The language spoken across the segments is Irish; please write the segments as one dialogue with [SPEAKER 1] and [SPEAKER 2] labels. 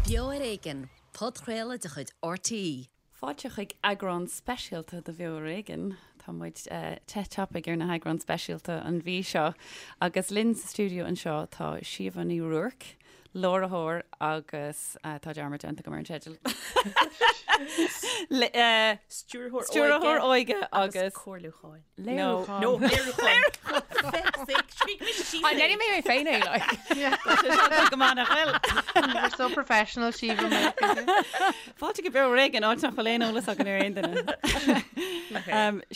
[SPEAKER 1] Beo ar Éigean, podchraoladh de chuid RTÉ.
[SPEAKER 2] Fáilte chuig eagrán speisialta de Bheo ar Éigean. Tá muid te tapaidh ar na heagráin speisialta an mhí seo agus linn sa stiúideo anseo tá Síomha Ní Ruairc, láithreoir agus tá dearmad déanta agam ar an teideal.
[SPEAKER 3] Stiúrthóir
[SPEAKER 2] óige agus
[SPEAKER 3] comhairliúcháin.
[SPEAKER 2] Léiriúcháin.
[SPEAKER 3] No, léiriúcháin. Feck's sake, scrígh mise síos é.
[SPEAKER 4] Déanfaidh mé mé féin é, like.
[SPEAKER 2] Tá sé seo go maith nach bhfuil?
[SPEAKER 5] We're so professional, Síomha.
[SPEAKER 2] Fáilte go Beo ar Éigean, áit nach bhfuil aon eolas againn ar aon duine.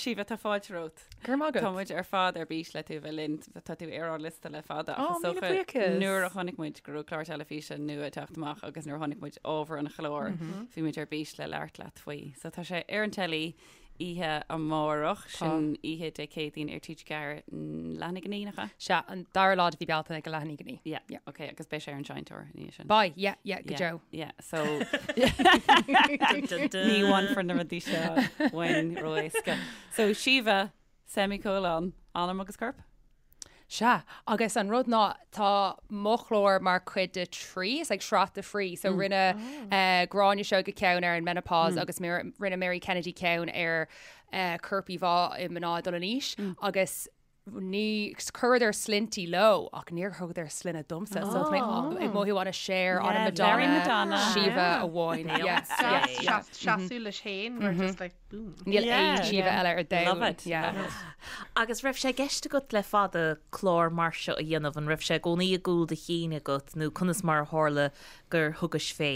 [SPEAKER 2] Síomha, tá fáilte romhat.
[SPEAKER 4] Go raibh maith agat.
[SPEAKER 2] Tá muid ar fad ar bís le tú a bheith linn. Tá tú ar ár liosta le fada.
[SPEAKER 4] Ó,
[SPEAKER 2] Ach is
[SPEAKER 4] míle
[SPEAKER 2] dócha
[SPEAKER 4] buíochas.
[SPEAKER 2] nuair a chonaic muid go raibh clár teilifíse nua ag teacht amach agus nuair a chonaic muid ábhar an chláir, bhí muid ar bís le labhairt leat faoi. So tá sé ar an teilí oíche amárach, sin oíche Dé Céadaoin ar TG4 leath i ndiaidh a naoi, nach ea?
[SPEAKER 4] Sea, an dara lá de mhí Bealtaine ag a leath i ndiaidh a naoi.
[SPEAKER 2] Yeah, yeah. Ok, agus beidh sé ar an Seinnteoir ina dhiaidh sin.
[SPEAKER 4] Beidh, yeah, yeah, go
[SPEAKER 2] Yeah,
[SPEAKER 4] deo.
[SPEAKER 2] yeah, so ní bhainfear na rudaí seo uainn ró-éasca. So Síomha, semicolon, anam agus corp?
[SPEAKER 4] Sea, agus an rud ná tá mo chlár mar chuid de trí, it's like sraith de thrí, so rinne Gráinne Seoige ceann ar an menopause agus rinne Mary Kennedy ceann ar corp-íomhá i mná ag dul in aois agus ní, chuireadar sloinntí leo ach níor thugadar sloinne domsa, so tá mé ag mothú an-Cher, an-Madonna, Síomha amháin. Yeah, yeah, yeah.
[SPEAKER 5] Seasamh leis féin, we're just like. Boom.
[SPEAKER 4] Níl aon Síomha eile ar domhan.
[SPEAKER 2] Love it.
[SPEAKER 4] Yeah.
[SPEAKER 2] Love it.
[SPEAKER 3] Agus raibh sé i gceist agat le fada clár mar seo a dhéanamh? An raibh sé i gcónaí i gcúl do chinn agat nó conas mar a tharla gur thugais fé?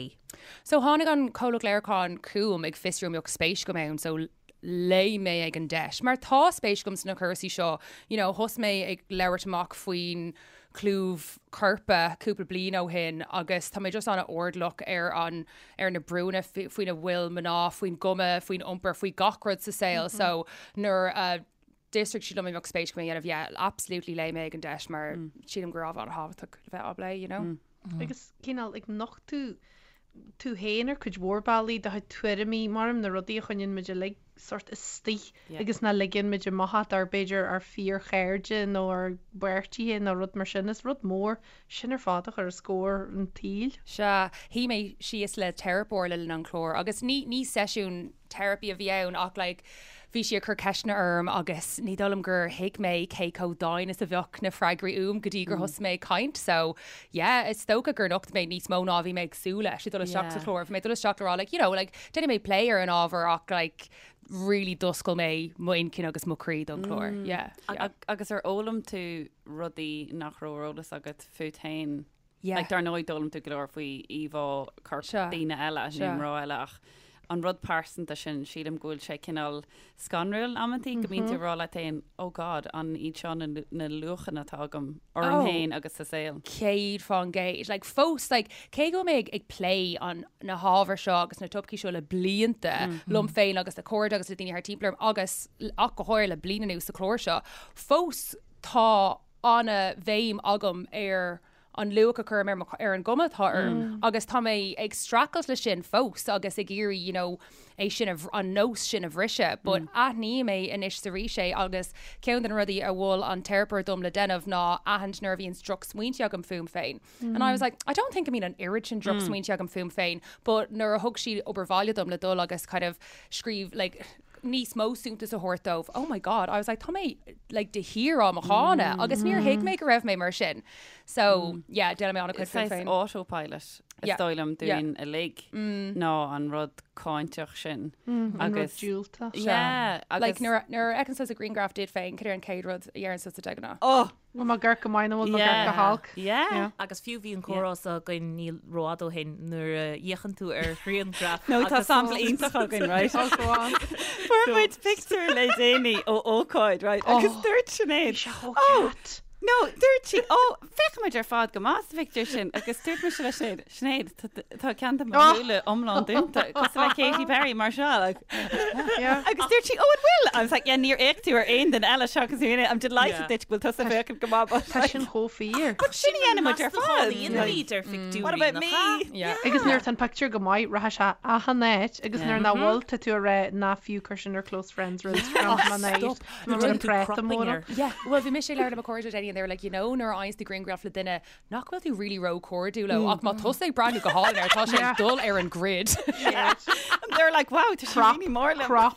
[SPEAKER 4] So tháinig an comhlacht léiriúcháin chugam ag fiosrú an mbeadh spéis agam ann so léim mé ag an deis. Mar tá spéis agam sna cúrsaí seo, you know, thosaigh mé ag labhairt amach faoin chlúmh coirpe cúpla bliain ó shin agus tá mé just an-airdeallach ar an ar na brúnna faoina bhfuil mná, faoin gcuma, faoin iompar, faoi gach rud sa saol so nuair a d'fhiosraigh siad liom an mbeadh spéis agam é a dhéanamh, yeah, absolutely léim mé ag an deis mar sílim gur ábhar an-thábhachtach le bheith á bplé, you know.
[SPEAKER 5] Agus cineál ag nochtadh tú féin ar cuid mhór bealaí, do chuid tuairimí, mar na rudaí a choinníonn muid uilig sórt istigh agus nach ligeann muid amach ach dár b'fhéidir ár fíorchairde nó ár bpáirtithe nó rud mar sin. Is rud mór sin ar fad a chur os comhair an tsaoil.
[SPEAKER 4] Sea, shuigh mé síos le teiripeoir le linn an chláir agus ní, ní seisiún teiripí a bhí ann ach like bhí sí ag cur ceisteanna orm agus ní dóigh liom gur thuig mé cé chomh domhain is a bheadh na freagraí uaim go dtí gur thosaigh mé ag caint so yeah is dócha gur nocht mé níos mó ná a bhí mé ag súil leis ag dul isteach sa chlár. Bhí mé ag dul isteach le rá like you know like déanfaidh mé plé ar an ábhar ach like really d'oscail mé m'intinn
[SPEAKER 2] agus
[SPEAKER 4] mo chroí don chlár. Yeah, yeah.
[SPEAKER 2] Agus ar fhoghlaim tú rudaí nach raibh ar eolas agat fút féin?
[SPEAKER 4] Yeah.
[SPEAKER 2] Like, dar ndóigh d'fhoghlaim tú go leor faoi íomhá coirp
[SPEAKER 4] Sea.
[SPEAKER 2] daoine eile,
[SPEAKER 4] Sea.
[SPEAKER 2] nó mná eile ach an rud pearsanta sin, sílim go bhfuil sé cineál scanrúil amantaí go mbíonn tú ag rá leat féin, oh God, an iad seo na, na luachanna atá agam orm
[SPEAKER 4] Oh.
[SPEAKER 2] féin agus sa saol.
[SPEAKER 4] 100%. Like, fós, like, cé go bhfuil mé ag, ag plé an, na hábhair seo agus na topaicí seo le blianta liom féin agus le cairde agus le daoine thart timpeall orm agus ach go háirithe le bliain anuas sa chlár seo, fós tá an-bhéim agam ar an luach a chuirim ar mo, ar an gcuma atá orm agus tá mé ag streachailt leis sin fós agus ag iarraidh you know é sin a, an nós sin a bhriseadh but aithním é anois is arís é agus ceann de na rudaí a mhol an teiripeoir dom le déanamh ná aithint nuair a bhíonn drochsmaointe agam fúm féin. And I was like, I don't think go mbíonn an oiread sin drochsmaointe agam fúm féin but nuair a thug sí obair bhaile dom le dul agus kind of scríobh like níos mó suntas a thabhairt dóibh, oh my God, I was like, tá mé like de shíor á mo cháineadh agus níor thuig mé go raibh mé mar sin. So, yeah, déanaim mé an-chuid
[SPEAKER 2] Is saghas
[SPEAKER 4] féin.
[SPEAKER 2] autopilot is
[SPEAKER 4] Yeah.
[SPEAKER 2] dóigh liom
[SPEAKER 4] Yeah.
[SPEAKER 2] dúinn uilig ná an rud cáinteach sin.
[SPEAKER 5] An rud
[SPEAKER 2] Agus
[SPEAKER 5] diúltach.
[SPEAKER 2] Yeah, agus
[SPEAKER 4] Like nuair a- nuair a fheiceann tusa grianghraf díot féin, cad é an chéad rud a dheireann tusa de ghnáth?
[SPEAKER 2] Oh!
[SPEAKER 5] Bhfuil mé ag amharc go maith nó bhfuil mé ag amharc go holc?
[SPEAKER 2] Yeah.
[SPEAKER 3] Agus fiú bhí an comhrá seo againn ní rófhada ó shin nuair a fhéachann tú ar ghrianghraf
[SPEAKER 2] No, tá
[SPEAKER 3] agus
[SPEAKER 2] sampla iontach againn, right?
[SPEAKER 5] Oh, go on.
[SPEAKER 2] Fuair muid pictiúr le déanaí ó ócáid, right? Agus dúirt Sinéad,
[SPEAKER 5] Bhí sé chomh
[SPEAKER 2] Oh!
[SPEAKER 5] ceart.
[SPEAKER 2] No, dúirt sí, ó, féachaimid ar fad go maith sa phictiúr sin agus dúirt mise le Sinéad, Sinéad, tá ceann de mo
[SPEAKER 5] Oh.
[SPEAKER 2] shúile iomlán dúnta, cosúil le Katy Perry mar seo. Like.
[SPEAKER 5] Yeah.
[SPEAKER 2] Agus dúirt sí, oh, an bhfuil? I was like, yeah, níor fhéach tú ar aon duine eile seachas mé. I'm delighted
[SPEAKER 3] Yeah.
[SPEAKER 2] duit go bhfuil tusa féachaint go maith. but
[SPEAKER 5] Tá
[SPEAKER 2] like-
[SPEAKER 5] sin chomh fíor.
[SPEAKER 2] But sin a dhéanann muid ar fad.
[SPEAKER 3] Like, ar phictiúirí
[SPEAKER 2] What about me?
[SPEAKER 4] Yeah.
[SPEAKER 5] Agus nuair atá an pictiúr go maith, rachaidh sé achan áit agus nuair nach bhfuil tá tú ag rá ná fiú cuir sin ar close friends ar Instagram
[SPEAKER 4] Oh,
[SPEAKER 5] má
[SPEAKER 4] stop.
[SPEAKER 5] Nó
[SPEAKER 3] Déanann tú
[SPEAKER 5] práta
[SPEAKER 3] cropping
[SPEAKER 5] mór.
[SPEAKER 3] air.
[SPEAKER 4] Yeah, well bhí mise ag labhairt le mo chairde le déanaí. and they were like, you know, nuair a fhaigheanns tú grianghraf le duine nach bhfuil tú really ró-chairdiúil leo ach má tá tusa ag breathnú go hálainn air, tá sé ag dul ar an grid.
[SPEAKER 2] And they're like, wow, tá sé really mór liom.
[SPEAKER 5] Crop.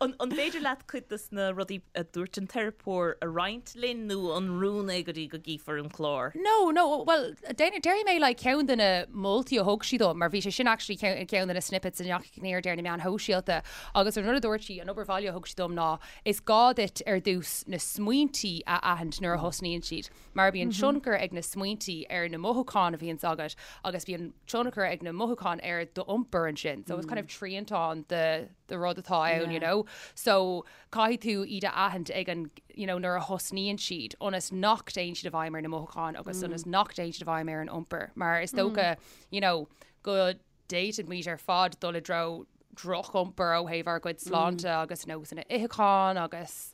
[SPEAKER 3] An an féidir leat cuid de na rudaí a dúirt an teiripeoir a roinnt linn nó an rún é go dtí go gcífear an clár?
[SPEAKER 4] No, no, well, déarfaidh mé like ceann de na moltaí a thug sí dom, mar bhí sé sin actually ceann ceann de na snippets a ndeachaigh in airde ar na meáin shóisialta agus an rud a dúirt sí, an obair bhaile a thug sí dom ná Is gá duit ar dtús na smaointí a aithint nuair a thosnaíonn siad, mar bíonn tionchar ag na smaointí ar na mothúcháin a bhíonns agat agus bíonn tionchar ag na mothúcháin ar d'iompar ansin. So it's kind of triantán de de rud atá ann, you know. So caithfidh tú iad a aithint ag an, you know, nuair a thosnaíonn siad, ionas nach dtéann siad i bhfeidhm ar na mothúcháin agus ionas nach dtéann siad i bhfeidhm ar an iompar. Mar is dócha, you know, go d'fhéadfadh muid ar fad dul i dtreo droch-iompar ó thaobh ár gcuid sláinte agus nósanna itheacháin agus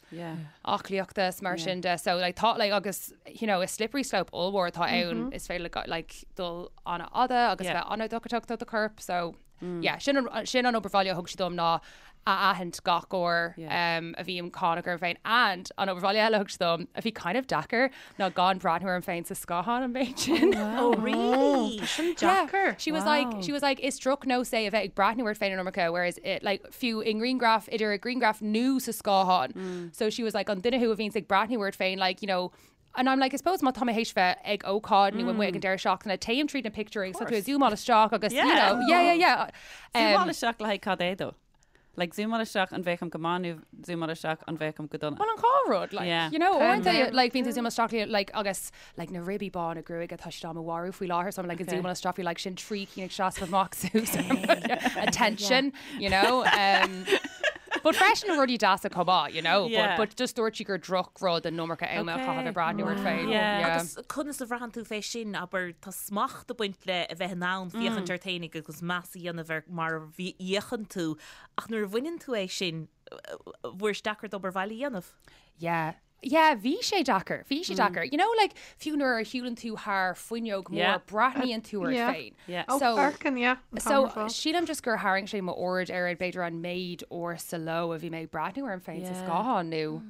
[SPEAKER 4] aclaíochta is mar sin de. So like tá like agus you know is slippery slope ollmhór atá ann is féidir le like dul an-fhada agus bheith an-dochrach do do chorp. So yeah sin an sin an obair bhaile a thug sí dom ná a aithint gach uair a bhím cáineach orm féin and an obair bhaile eile a thug sí dom a bhí kind of deacair ná gan breathnú orm féin sa scáthán an méid sin.
[SPEAKER 3] Oh really?
[SPEAKER 5] Tá sin deacair.
[SPEAKER 4] She was like she was like is drochnós é a bheith ag breathnú ort féin an iomarca whereas it like fiú i ngrianghraf idir i ngrianghraf nó sa scáthán. So she was like an duine thú a bhíonns ag breathnú ort féin like you know And I'm like, I suppose má tá mé théis bheith ag ócáid nó amuigh ag an deireadh seachtaine, téim tríd na pictiúirí agus tá tú ag zoomáil isteach agus, you know, yeah, yeah, yeah.
[SPEAKER 2] Zoomáil isteach le haghaidh cad é though? Like zoomáil isteach an bhféachaim go maith nó zoomáil isteach an bhféachaim go dona?
[SPEAKER 4] Well an dhá rud, like, yeah. you know, uaireanta, like, bíonn tú zoomáil isteach le, like, agus, like, na ribí bána gruaige tá siad á mo mharú faoi láthair, so I'm like, okay. zoomáil isteach faoi, like, sin trí cinn ag seasamh amach suas attention, you know. Um, But freisin rudaí deasa chomh maith, you know, yeah. but, but just dúirt sí gur drochrud an iomarca ama a chaitheamh ag breathnú ort féin.
[SPEAKER 3] Yeah. Agus conas a bhraitheann tú fé sin, abair, tá smacht ag baint le a bheith in ann féachaint ort féinig agus meas a dhéanamh ar mar a fhéachann tú, ach nuair a bhaineann tú é sin, bhfuair sé deacair d'obair bhaile a dhéanamh?
[SPEAKER 4] Yeah. Yeah, bhí sé deacair, bhí sé deacair. You know, like, fiú nuair a shiúlann tú thar fuinneog mór,
[SPEAKER 2] Yeah.
[SPEAKER 4] breathnaíonn tú ort
[SPEAKER 5] Yeah.
[SPEAKER 4] féin.
[SPEAKER 2] Yeah.
[SPEAKER 5] Oh,
[SPEAKER 4] So-
[SPEAKER 5] amharcann, yeah. an
[SPEAKER 4] So,
[SPEAKER 5] t-am ar fad.
[SPEAKER 4] sílim just gur tharraing sé m'aird ar b'fhéidir an méid uair sa ló a bhí mé ag breathnú orm féin sa
[SPEAKER 2] Yeah.
[SPEAKER 4] scáthán nó,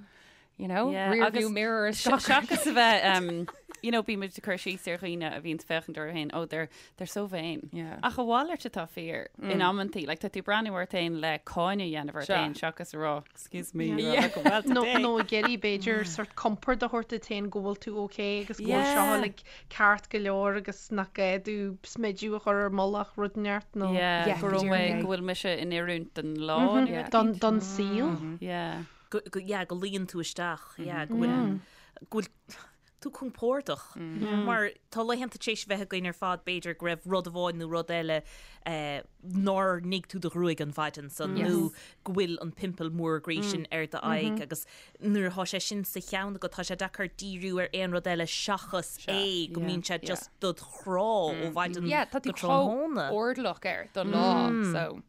[SPEAKER 4] you know,
[SPEAKER 2] Yeah,
[SPEAKER 4] rear
[SPEAKER 2] agus
[SPEAKER 4] view mirror is gach
[SPEAKER 2] Seachas a bheith, um, you know, bímid ag cur síos ar dhaoine a bhíonn féachaint orthu féin, oh, they're, they're so vain.
[SPEAKER 4] Yeah.
[SPEAKER 2] Ach a mhalairt atá fíor in amantaí, like, tá tú breathnú ort féin le cáineadh a dhéanamh ort
[SPEAKER 4] Sure.
[SPEAKER 2] féin seachas a rá, excuse me,
[SPEAKER 5] Yeah.
[SPEAKER 2] you're looking well
[SPEAKER 5] Nó
[SPEAKER 2] today.
[SPEAKER 5] nó ag iarraidh b'fhéidir sort compord a thabhairt duit féin go bhfuil tú ok agus go bhfuil
[SPEAKER 2] Yeah.
[SPEAKER 5] seo like ceart go leor agus nach gá duit smideadh a chur ar mullach rud inteacht nó
[SPEAKER 2] Yeah,
[SPEAKER 4] Yeah,
[SPEAKER 2] go raibh
[SPEAKER 4] go
[SPEAKER 2] mé,
[SPEAKER 4] díreach.
[SPEAKER 2] go bhfuil mise in oiriúint don lá nó
[SPEAKER 4] Yeah.
[SPEAKER 2] rud
[SPEAKER 5] don
[SPEAKER 2] éicint.
[SPEAKER 5] don saol.
[SPEAKER 2] Yeah.
[SPEAKER 3] Go, go, yeah, go luíonn tú isteach, yeah, go bhfuil, go bhfuil tú compordach. Mar tá laethanta tar éis bheith againn ar fad b'fhéidir go raibh rud amháin nó rud eile eh, nár nigh tú do ghruaig an mhaidin san nó go bhfuil an pimple mór groí sin ar d'aghaidh agus nuair atá sé sin sa cheann agat tá sé deacair díriú ar aon rud eile seachas é go mbíonn sé just dod chrá ó mhaidin
[SPEAKER 4] Yeah, tá tú
[SPEAKER 3] go tráthnóna.
[SPEAKER 4] chomh airdeallach air don lá, so.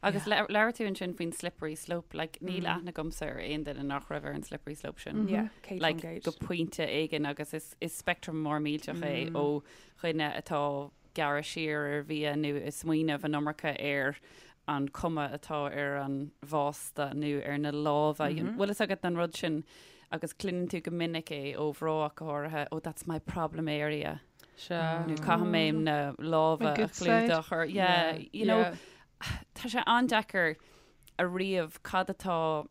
[SPEAKER 2] Agus labhair tú ansin faoin slippery slope, like níl aithne agamsa ar aon duine nach raibh ar an slippery slope sin.
[SPEAKER 4] Yeah, céad
[SPEAKER 2] Like
[SPEAKER 4] faoin gcéad.
[SPEAKER 2] go pointe éigin agus is, is spectrum mór millteach é ó dhuine atá gearradh siar ar bhia nó ag smaoineamh an iomarca ar an cuma atá ar an bhásta nó ar na lámha. Bhfuil fhios agat an rud sin agus cluineann tú go minic é ó mhná ach go háirithe, oh that's my problem area.
[SPEAKER 4] Sea.
[SPEAKER 2] Nó caithfidh mé na lámha
[SPEAKER 5] My
[SPEAKER 2] a
[SPEAKER 5] good side.
[SPEAKER 2] chlúdach or yeah, you know,
[SPEAKER 4] Yeah.
[SPEAKER 2] tá sé an-deacair a ríomh cad atá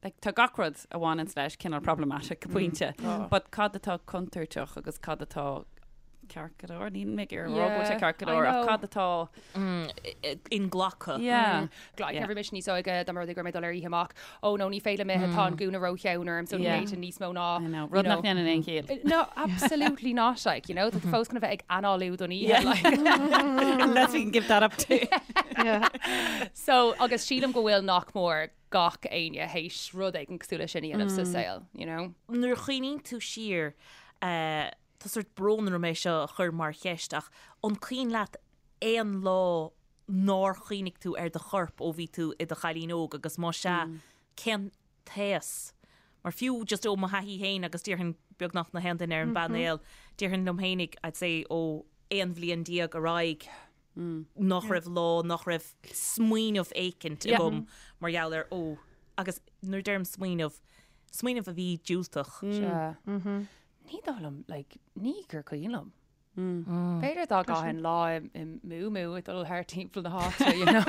[SPEAKER 2] like, tá gach rud a bhaineann leis cineál problematic go pointe, but cad atá contúirteach agus cad atá ceart go leor, níl mé ag iarraidh a rá go bhfuil sé
[SPEAKER 4] Yeah,
[SPEAKER 2] ceart go
[SPEAKER 4] I
[SPEAKER 2] leor, ach
[SPEAKER 4] know.
[SPEAKER 2] cad atá
[SPEAKER 3] Inghlactha.
[SPEAKER 2] yeah.
[SPEAKER 4] Like,
[SPEAKER 2] Yeah.
[SPEAKER 4] bhí mise níos óige dá mba rud é go raibh mé ag dul ar oíche amach. Ó no, ní féidir liom ithe, tá an gúna rótheann orm, so ní
[SPEAKER 2] Yeah.
[SPEAKER 4] fhéadfainn níos mó ná,
[SPEAKER 2] I know,
[SPEAKER 4] you
[SPEAKER 2] rud nach
[SPEAKER 4] know.
[SPEAKER 2] ndéanann aon chiall.
[SPEAKER 4] No, absolutely not, like, you know, tá tú fós chun a bheith ag análú don oíche, like.
[SPEAKER 2] Unless we can give that up too.
[SPEAKER 5] Yeah.
[SPEAKER 4] So, agus sílim go bhfuil nach mór gach éinne théis rud éigin cosúil leis sin a dhéanamh sa saol, you know.
[SPEAKER 3] Nuair a chuimhníonn tú siar, eh, tá sórt brón orm é seo a chur mar cheist ach an cuimhin leat aon lá nár chuimhnigh tú ar do chorp ó bhí tú i do chailín óg agus más ea, cén t-aos? Mar fiú just ó mo thaithí féin agus déarfainn beagnach na haon duine ar an bpainéal, déarfainn liom féinig, I'd say ó 11 bhliain ar aghaidh nach raibh lá nach raibh smaoineamh éicint agam mar gheall ar ó agus nuair a deirim smaoineamh. Smaoineamh a bhí diúltach.
[SPEAKER 4] Sea. Ní dóigh liom, like, ní gur cuimhin liom. B'fhéidir dá gcaithfinn lá i muumuu ag dul thart timpeall na háite, you know,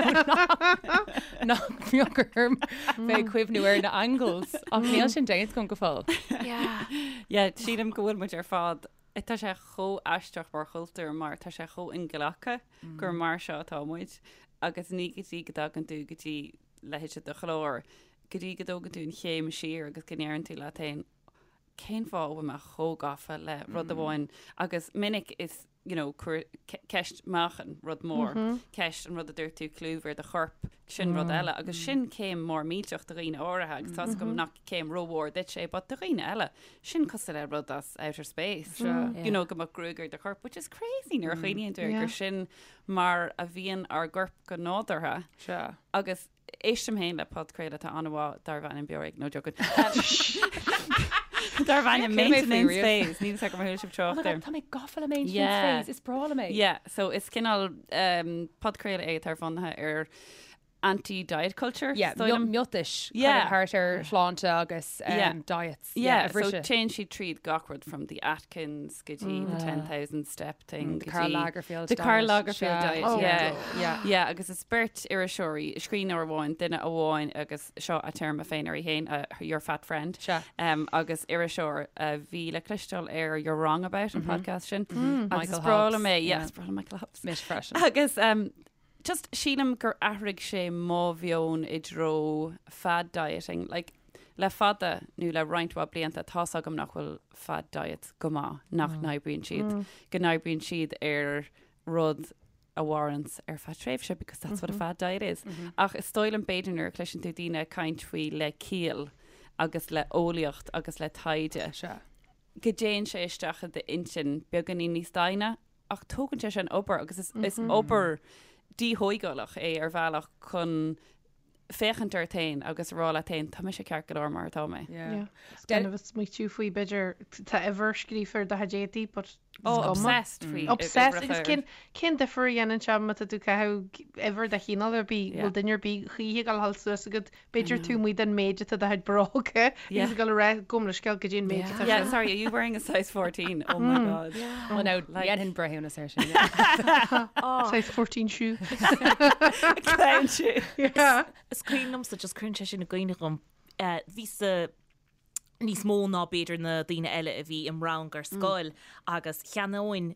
[SPEAKER 4] nach mbeadh orm bheith ag cuimhniú ar na angles, ach níl sin déanta agam go fóill.
[SPEAKER 2] Yeah, sílim go bhfuil muid ar fad, tá sé chomh aisteach mar chultúr mar tá sé chomh inghlactha gur mar seo atá muid agus ní go dtí go dtagann tú go dtí leithéid de chlár, go dtí go dtógann tú an chéim siar agus go ndeireann tú leat féin, cén fáth a bhfuil mé chomh gafa le rud amháin agus minic is you know, cuir, ceist meáchain, rud mór, ceist an rud a dúirt tú, clúmh ar do chorp, sin rud eile agus sin céim mór millteach do dhaoine áirithe agus tá's agam nach céim rómhór duit é, but do dhaoine eile, sin cosúil le rud as outer space, you know, go mbeadh gruaig ar do chorp, which is crazy nuair a chuimhníonn tú air gur sin mar a bhíonn ár gcorp go nádúrtha.
[SPEAKER 4] Sea.
[SPEAKER 2] Agus éistim féin le podchraoladh atá an-mhaith darb ainm Beo Ar Éigean, no joking. Darb ainm Maintenance Phase. Níl a fhios agam ar chuala sibh
[SPEAKER 4] trácht air. Tá mé gafa le Maintenance Phase, is breá liom é.
[SPEAKER 2] Yeah, so is cineál podchraoladh é atá bunaithe ar anti-diet culture.
[SPEAKER 4] Yeah, miotais yeah. thart ar shláinte agus um, yeah. diets.
[SPEAKER 2] Yeah, so téann siad tríd gach rud from the Atkins go dtí the 10,000 step thing.
[SPEAKER 4] The Karl Lagerfeld
[SPEAKER 2] The Karl Lagerfeld diet, oh, yeah. Yeah. Yeah, agus is beirt iriseoirí, scríbhneoir amháin, duine amháin agus seo a téarma féin uirthi féin, uh, your fat friend, um, agus iriseoir a bhí le cloisteáil ar You're Wrong About an podcast sin. Agus
[SPEAKER 4] Michael
[SPEAKER 2] is breá
[SPEAKER 4] Hobbs,
[SPEAKER 2] liom é, yeah,
[SPEAKER 4] yeah.
[SPEAKER 2] is breá liom Michael Hobbs.
[SPEAKER 4] Mise freisin.
[SPEAKER 2] Agus um, Just sílim gur athraigh sé mo mheon i dtreo fad dieting. Like, le fada nó le roinnt mhaith blianta tá's agam nach bhfuil fad diets go maith, nach n-oibríonn siad, go n-oibríonn siad ar rud a mhaireanns ar feadh tréimhse because that's what a fad diet is. Ach is dóigh liom b'fhéidir nuair a chloiseann tú daoine ag caint faoi le ciall agus le eolaíocht agus le taighde, go dtéann sé isteach i d'intinn beagáinín níos doimhne Ach tógann sé sin obair agus is, is obair díthógálach é ar bhealach chun féachaint ort féin agus a rá leat féin, tá mise ceart go leor mar atá mé.
[SPEAKER 4] Yeah.
[SPEAKER 5] Is gan a bheith smaoitiú faoi b'fhéidir tá uimhir scríofa ar do chuid éadaí but is
[SPEAKER 2] Oh,
[SPEAKER 5] cuma.
[SPEAKER 2] obsessed faoi
[SPEAKER 5] Obsessed
[SPEAKER 2] uimhreacha
[SPEAKER 5] agus cén cén difear a dhéanann sé má tá tú ag caitheamh uimhir de chineál ar bith,
[SPEAKER 2] Yeah.
[SPEAKER 5] bhfuil duine ar bith choíche ag dul suas agat B'fhéidir tú amuigh den méid atá do chuid bróga agus ag dul a rá gabh mo leithscéal goidé an méid atá
[SPEAKER 2] Yeah,
[SPEAKER 5] sin.
[SPEAKER 2] sorry, are you wearing a size 14? Oh my god.
[SPEAKER 4] Well, no, dhéanfainn breithiúnas air sin.
[SPEAKER 5] Size 14 shoe.
[SPEAKER 2] Clown shoe.
[SPEAKER 5] Yeah.
[SPEAKER 3] Is cuimhin liomsa, just cuireann sé sin i gcuimhne dhom, bhíos-sa níos mó ná b'fhéidir na daoine eile a bhí im rang ar scoil agus cheannóinn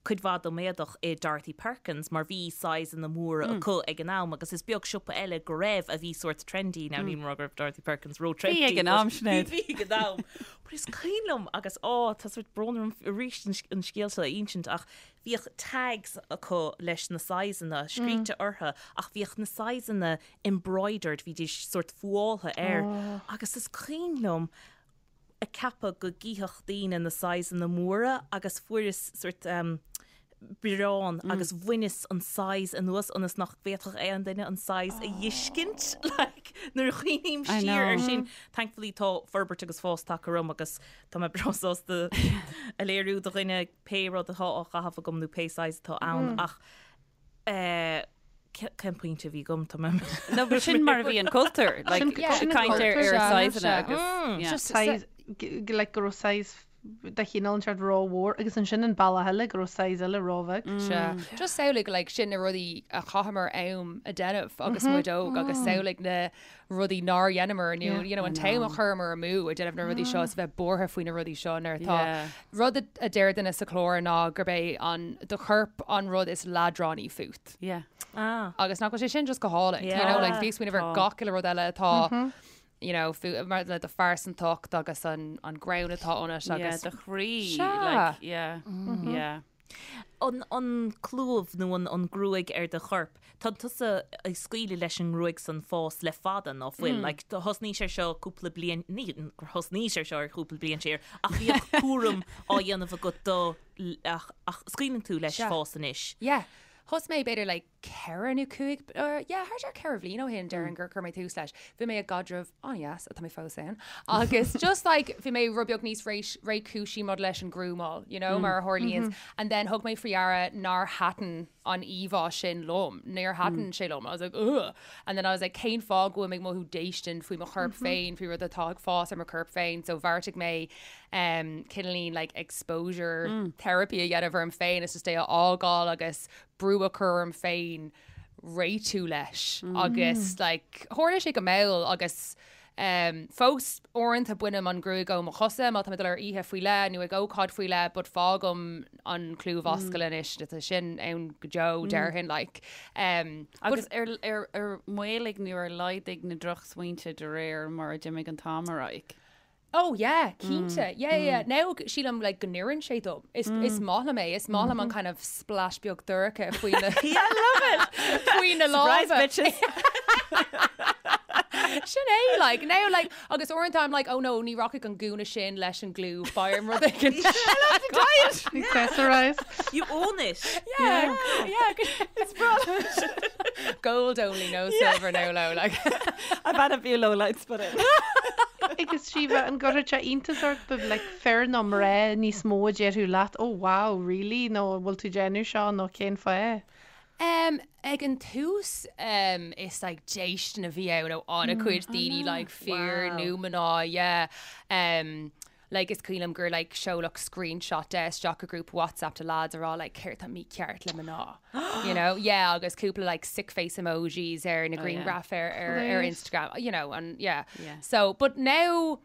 [SPEAKER 3] cuid mhaith dom éadach i Dorothy Perkins mar bhí sizeanna móra acu ag an am agus is beag siopa eile go raibh a bhí sórt trendy, now níl mé ag rá go raibh Dorothy Perkins ró trendy
[SPEAKER 2] Bhí ag an am, Sinéad.
[SPEAKER 3] Bhí ag an am. But is cuimhin liom agus á tá sórt brón orm arís an scéal seo a insint ach bhíodh tags acu leis na sizeanna scríte orthu ach bhíodh na sizeanna embroidered, bhídís sórt fuáilthe air agus is cuimhin liom ag ceapadh go gcífeadh daoine na sizeanna móra agus fuaireas sort bioráin agus bhaineas an size anuas ionas nach bhféadfadh aon duine an size a fheiscint like nuair a chuimhním siar ar sin thankfully tá forbairt agus fás tagtha orm agus tá mé breá sásta a léiriú do dhuine pé rud atá á chaitheamh agam nó pé size atá ann ach eh, Cén pointe a bhí agam? Tá mé.
[SPEAKER 2] No, but sin mar a bhí an cultúr. Like,
[SPEAKER 5] Sin-
[SPEAKER 2] yeah,
[SPEAKER 5] sin an
[SPEAKER 2] caint ar
[SPEAKER 5] cultúr,
[SPEAKER 2] ar
[SPEAKER 4] sea,
[SPEAKER 2] sizeanna
[SPEAKER 4] sea.
[SPEAKER 2] agus yeah.
[SPEAKER 4] Just
[SPEAKER 5] Size, g- g- like go raibh size de chineál inteacht rómhór agus ansin an bealach eile go raibh size eile róbheag.
[SPEAKER 4] Sea. Just samhlaigh like sin na rudaí a chaitheamar am a déanamh agus muid óg agus samhlaigh na rudaí nár dheineamar nó you know an t-am a chuireamar amú ag déanamh na rudaí seo is a bheith buartha faoi na rudaí seo nuair atá
[SPEAKER 2] Yeah.
[SPEAKER 4] rud a a deir duine sa chlár ná gurb é an do chorp an rud is leadránaí fút.
[SPEAKER 2] Yeah.
[SPEAKER 3] Ah.
[SPEAKER 4] Agus nach bhfuil sé sin just go hálainn. You know, like
[SPEAKER 3] Yeah.
[SPEAKER 4] bhí smaoineamh ar
[SPEAKER 2] Tá.
[SPEAKER 4] gach uile rud eile atá you know, fú, mar le do phearsantacht agus an, an greann atá ionat
[SPEAKER 2] Yeah,
[SPEAKER 4] agus
[SPEAKER 2] do chroí.
[SPEAKER 4] Sea.
[SPEAKER 2] Like, yeah. Yeah.
[SPEAKER 3] An, an clúmh nó an, an gruaig ar do chorp, tá tusa ag scaoileadh leis an ngruaig san fás le fada, ná fuil? Like, do thosnaís ar seo cúpla bliain, ní gur thosnaís ar seo ar chúpla bliain siar, ach bhíodh cúram á dhéanamh agat do, ach, ach scaoileann tú leis
[SPEAKER 4] Sea.
[SPEAKER 3] fás anois.
[SPEAKER 4] Yeah. Thosaigh mé b'fhéidir like 4 nó 5, yeah, thart ar 4 bhliain ó shin déarfainn gur chuir mé tús leis. Bhí mé i gcaidreamh an-deas, atá mé fós ann, agus just like bhí mé rud beag níos réchúisí maidir leis an grúmáil, you know, mar a tharlaíonns. And then thug mé faoi deara nár thaitin an íomhá sin liom, níor thaitin sé liom. I was like, ugh. And then I was like, cén fáth go bhfuil mé ag mothú déistin faoi mo chorp féin, faoi rud atá ag fás ar mo chorp féin. So bheartaigh mé um, cineáilín like exposure therapy a dhéanamh orm féin, is just é a fhágáil agus brú a chur orm féin réitiú leis agus like tharla sé go mall agus um, fós uaireanta bainim an ghruaig ó mo chosa má tá mé ag dul ar oíche faoi leith nó ag ócáid faoi leith but fágaim an clúmhascail anois tá sin ann go deo déarfainn like um,
[SPEAKER 2] Agus ar, ar, ar mhaolaigh nó ar laghdaigh na drochsmaointe de réir mar a d'imigh an t-am ar aghaidh?
[SPEAKER 4] Oh yeah, cinnte. Yeah, yeah. Now sílim like go n-oireann sé dom. Is is maith liom é. Is maith liom an kind of splash beag dorcha faoi na
[SPEAKER 2] I love it!
[SPEAKER 4] faoi na
[SPEAKER 2] Surprise
[SPEAKER 4] lámha.
[SPEAKER 2] bitches!
[SPEAKER 4] Sin é like now like agus uaireanta I'm like oh no ní rachaidh an gúna sin leis an gclúmh beidh orm rud éigin.
[SPEAKER 2] I love the diet!
[SPEAKER 5] Accessorize.
[SPEAKER 3] You own it!
[SPEAKER 4] Yeah, yeah. It's brilliant. Gold only, no silver, no low. Like.
[SPEAKER 2] I've had a few low lights put in.
[SPEAKER 5] Agus Síomha, an gcuirfeadh sé iontas ort b'fhéidir like fir nó mná níos mó a déarfadh leat oh wow, really? nó an bhfuil tú ag déanamh seo nó cén fáth?
[SPEAKER 4] Um, ag an tús um, is like déistin a bhí ann ó an-chuid daoine like fir
[SPEAKER 3] Wow.
[SPEAKER 4] nó mná, yeah. Um, like is cuimhin liom gur like seoladh screenshot de isteach i grúpa WhatsApp de lads a rá like céard tá mícheart le mná you know yeah agus cúpla like sick face emojis ar na grianghraif ar ar ar Instagram you know and yeah
[SPEAKER 2] Yeah.
[SPEAKER 4] so but now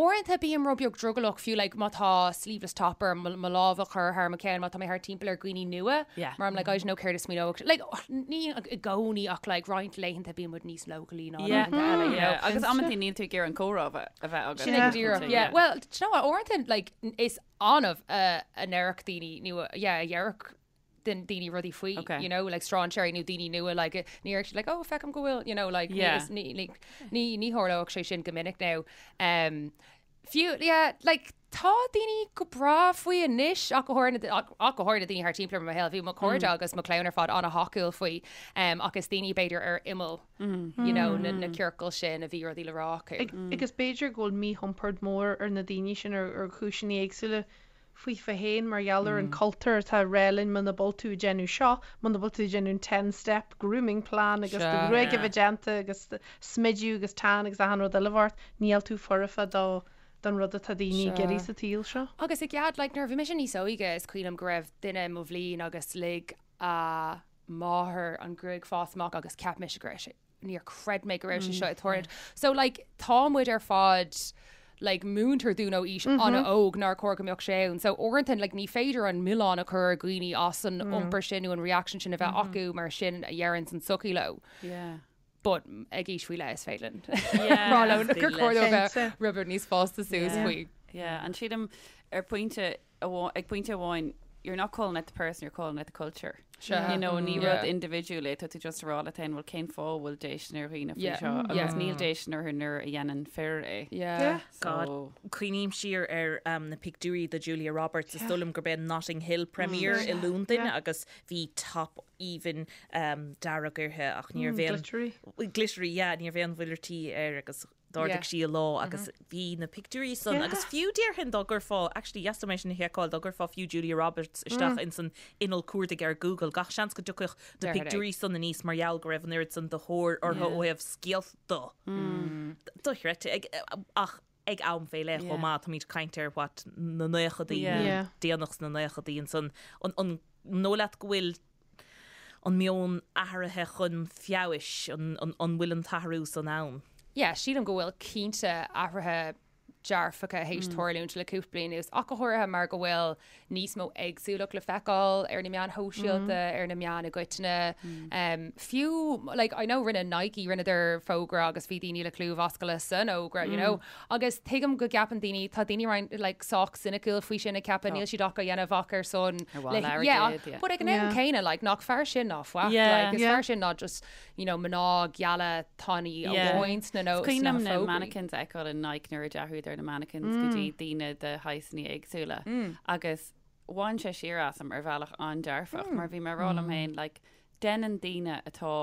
[SPEAKER 4] uaireanta bím rud beag drogallach fiú like má tá sleeveless top orm mo mo lámh a chur thar mo cheann má tá mé thar timpeall ar dhaoine nua
[SPEAKER 2] Yeah.
[SPEAKER 4] mar I'm like I don't know céard a smaoineoidh like ní i gcónaí ach like roinnt laethanta bíonn muid níos leochailí ná
[SPEAKER 2] Yeah.
[SPEAKER 4] laethanta eile you know
[SPEAKER 2] Yeah. Agus amantaí níl tú ag iarraidh an comhrá a bheith a bheith agat.
[SPEAKER 4] Sin é go díreach, yeah. Well, do you know what, uaireanta, like, is annamh a a ndéarfadh daoine, nó, yeah, a dhéarfadh daoine rudaí faoi,
[SPEAKER 2] Okay.
[SPEAKER 4] you know, like strainséirí nó daoine nua, like, ní déarfadh siad, like, oh, feicim go bhfuil, you know, like, ní,
[SPEAKER 2] Yeah.
[SPEAKER 4] is, ní, like, ní, ní tharlódh sé sin go minic now. Um, fiú, yeah, like, tá daoine go breá faoi anois, ach go háirithe, ach go háirithe daoine thar timpeall ar mo shaol, bhí mo chairde agus mo chlann ar fad an-thacúil faoi, um, ach is daoine b'fhéidir ar imeall, you know, na, na ciorcail sin a bhí rudaí le rá acu.
[SPEAKER 5] Agus b'fhéidir go bhfuil míchompord mór ar na daoine sin ar ar chúiseanna éagsúla faofa féin mar gheall ar an cultúr atá ag rá linn muna bhfuil tú ag déanamh seo, muna bhfuil tú ag déanamh an ten step grooming plan agus do ghruaig a bheith déanta agus smidiú agus tan agus achan rud eile ort, níl tú foirfe do don rud atá daoine ag iarraidh sa tsaol seo.
[SPEAKER 4] Agus i gcead, like, nuair a bhí mise níos óige is cuimhin liom go raibh duine i mo bhliain agus lig a máthair an ghruaig fás amach agus cheap mise go raibh sé níor chreid mé go raibh sé seo ag tarlúint. So like tá muid ar fad like múintear dúinn ó aois an-óg nár chóir go mbeadh sé ann. So uaireanta like ní féidir an milleán a chur ar dhaoine as an iompar sin nó an reaction sin a bheith acu mar sin a deireann an tsochaí leo.
[SPEAKER 2] Yeah.
[SPEAKER 4] But ag aois faoi leith is féidir linn rá leo gur chóir dóibh bheith rud beag níos fásta suas faoi.
[SPEAKER 2] Yeah, and sílim ar pointe ag pointe amháin, you're not calling out the person, you're calling out the culture.
[SPEAKER 4] Sure.
[SPEAKER 2] You know, ní
[SPEAKER 4] Yeah.
[SPEAKER 2] rud individual é, tá tú just ag rá leat féin, well cén fáth bhfuil déistin ar dhaoine faoi
[SPEAKER 4] Yeah.
[SPEAKER 2] seo,
[SPEAKER 4] Mm.
[SPEAKER 2] agus
[SPEAKER 4] Yeah.
[SPEAKER 2] níl déistin orthu nuair a dhéanann fir é.
[SPEAKER 4] Yeah.
[SPEAKER 3] God,
[SPEAKER 2] So,
[SPEAKER 3] cuimhním siar ar um, na pictiúirí de Julia Roberts, is dóigh liom gurb é Notting Hill premiere i Londain agus bhí top aoibhinn um, dearg uirthi ach ní raibh aon
[SPEAKER 5] Glittery.
[SPEAKER 3] glittery, yeah, ní raibh aon mhuileartaí air agus D'ardaigh sí a lámh agus bhí na pictiúirí san agus fiú déarfainn dá gcuirfeá, actually yes tá mé sin a sheiceáil, dá gcuirfeá fiú Julia Roberts isteach ins an inneall cuardaigh ar Google, gach seans go dtiocfadh na pictiúirí san aníos mar gheall go raibh an oiread san de thóir orthu ó thaobh scéalta. Dochreidte. Ag, ach ag am fé leith chomh maith, táimid ag caint ar what na naochadaí, déanach sna naochadaí ansan. An, an dóigh leat go bhfuil an meon athraithe chun feabhais, an bhfuil an t-athrú san ann?
[SPEAKER 4] Yeah, sílim go bhfuil cinnte athruithe dearfacha théis tarlúint le cúpla bliain anuas, ach go háirithe mar go bhfuil níos mó éagsúlacht le feiceáil ar na meáin shóisialta, ar na meáin i gcoitinne. Fiú, like, I know rinne Nike, rinneadar fógra agus bhí daoine le clúmhascaile san fhógra, you know, Agus tuigim go gceapann daoine, tá daoine roinnt like sách soiniciúil faoi sin ag ceapadh níl siad ach á dhéanamh ach ar son
[SPEAKER 2] Ar mhaithe le
[SPEAKER 4] yeah,
[SPEAKER 2] airgead, yeah.
[SPEAKER 4] but ag an am
[SPEAKER 5] Yeah.
[SPEAKER 4] céanna like nach fearr sin ná faic,
[SPEAKER 2] Yeah.
[SPEAKER 4] like is
[SPEAKER 5] Yeah.
[SPEAKER 4] fearr sin ná just you know mná geala tanaí
[SPEAKER 2] Yeah.
[SPEAKER 4] amháin sna nó
[SPEAKER 2] Is cuimhin
[SPEAKER 4] sna
[SPEAKER 2] liom na
[SPEAKER 4] fógraí.
[SPEAKER 2] mannequins a fheiceáil in Nike nuair a d'athraíodar na mannequins go dtí daoine de shaghsanna éagsúla agus bhain sé siar asam ar bhealach an-dearfach mar bhí mé ag rá liom féin like. Déanann daoine atá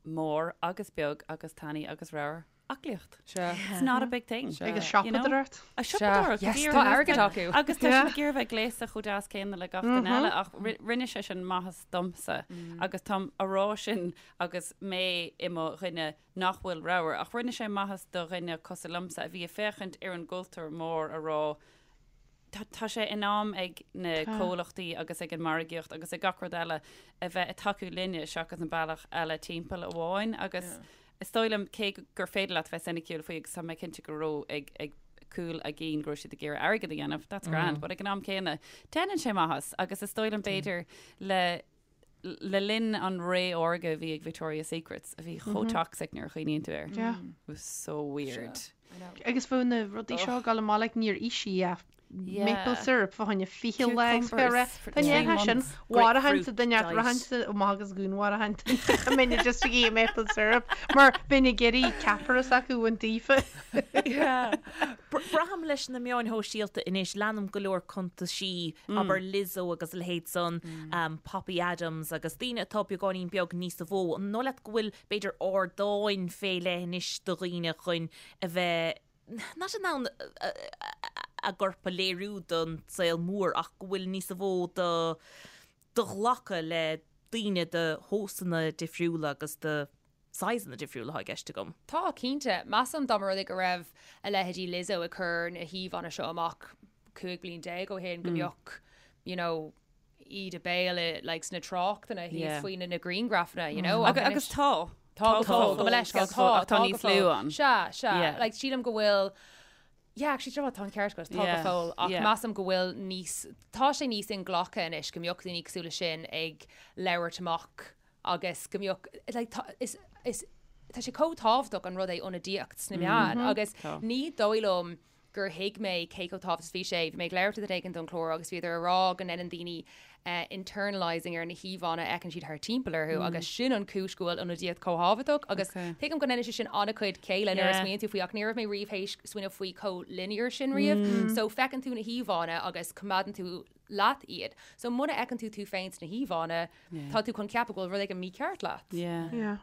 [SPEAKER 2] mór agus beag agus tanaí agus ramhar aclaíocht.
[SPEAKER 4] Sea.
[SPEAKER 2] It's not a big thing.
[SPEAKER 5] Agus siopadóireacht.
[SPEAKER 2] A siopadóireacht.
[SPEAKER 4] Yes, tá airgead acu.
[SPEAKER 2] Agus tá siad ag iarraidh bheith gléasta chomh deas céanna le gach duine eile ach rinne sé sin maitheas domsa agus táim a rá sin agus mé i mo dhuine nach bhfuil ramhar ach rinne sé maitheas do dhuine cosúil liomsa a bhí ag féachaint ar an gcultúr mór a rá Tá tá sé in am ag na comhlachtaí agus ag an margaíocht agus ag gach rud eile a bheith ag tacú linne seachas an bealach eile timpeall amháin agus is dóigh liom cé gur féidir leat bheith soiniciúil faoi agus tá mé cinnte go raibh ag ag cúl a gcinn go raibh siad ag iarraidh airgead a dhéanamh, that's grand, but ag an am céanna déanann sé maitheas agus is dóigh liom b'fhéidir le le linn an ré órga a bhí ag Victoria's Secrets a bhí chomh toxic nuair a chuimhníonn tú air.
[SPEAKER 5] Yeah.
[SPEAKER 2] It was so weird.
[SPEAKER 5] Agus bheadh na rudaí seo ag dul amach like níor ith sí ach
[SPEAKER 2] Yeah.
[SPEAKER 5] maple syrup fá choinne 20 lá agus
[SPEAKER 2] Cucumbers for
[SPEAKER 5] Tá
[SPEAKER 2] three
[SPEAKER 5] ndéanfá sin
[SPEAKER 2] months.
[SPEAKER 5] mharfainnse
[SPEAKER 3] Grapefruit
[SPEAKER 5] duine
[SPEAKER 3] diet.
[SPEAKER 5] rachainnse amach agus dhúnmharfainn a mbeinn just ag ithe maple syrup mar bheinn ag iarraidh ceapaire s'acu a bhaint daofa.
[SPEAKER 3] Yeah. Braithim leis na meáin shóisialta anois, leanaim go leor cuntaisí, abair Lizzo agus a leithéid san, Poppy Adams agus daoine atá beagáinín beag níosa mhó. An dóigh leat go bhfuil b'fhéidir ardáin fé leith anois do dhaoine chun a bheith not in ann a gcorp a léiriú don saol mór ach go bhfuil níosa mhó do do ghlacadh le daoine de thomhasanna difriúla agus de sizeanna difriúla atá i gceist agam.
[SPEAKER 4] Tá, cinnte. Measaim dá mba rud é go raibh a leithéidí Lizzo ag cur na híomhánna seo amach 15 bliain ó shin go mbeadh, you know, íde béil i, like, sna tráchtanna thíos
[SPEAKER 2] Yeah.
[SPEAKER 4] faoi na na grianghrafanna, you know.
[SPEAKER 2] Agus, agus tá.
[SPEAKER 4] Tá go fóill, gabh mo leithscéal,
[SPEAKER 2] Tá,
[SPEAKER 4] tá,
[SPEAKER 2] ach tá
[SPEAKER 4] tá
[SPEAKER 2] níos
[SPEAKER 4] go
[SPEAKER 2] lú
[SPEAKER 4] fóill.
[SPEAKER 2] ann.
[SPEAKER 4] Sea, sea.
[SPEAKER 2] Yeah.
[SPEAKER 4] Like, sílim go bhfuil, yeah, actually, do you know what, tá an ceart agat, tá go
[SPEAKER 2] Yeah,
[SPEAKER 4] fóill, ach
[SPEAKER 2] yeah.
[SPEAKER 4] measaim go bhfuil níos, tá sé níos inghlactha anois go mbeadh daoine cosúil leis sin ag labhairt amach agus go mbeadh, like, tá, is, is, tá sé chomh tábhachtach an rud é ionadaíocht sna meáin agus
[SPEAKER 2] Tá.
[SPEAKER 4] ní dóigh liom gur thuig mé cé chomh tábhachtach is bhí sé. Bhí mé ag labhairt le duine éigin don chlár agus bhíodar ag rá go ndéanann daoine internalising ar na híomhánna a fheiceann siad thar timpeall orthu agus sin an chúis go bhfuil ionadaíocht chomh tábhachtach agus tuigim go ndéanann sé sin an-chuid céille nuair a smaoiníonn tú faoi ach ní raibh mé riamh théis smaoineamh faoi chomh linear sin riamh. So feiceann tú na híomhánna agus coimeádann tú leat iad. So muna fheiceann tú tú féin sna híomhánna, tá tú chun ceapadh go bhfuil rud éigin mícheart leat.
[SPEAKER 2] Yeah.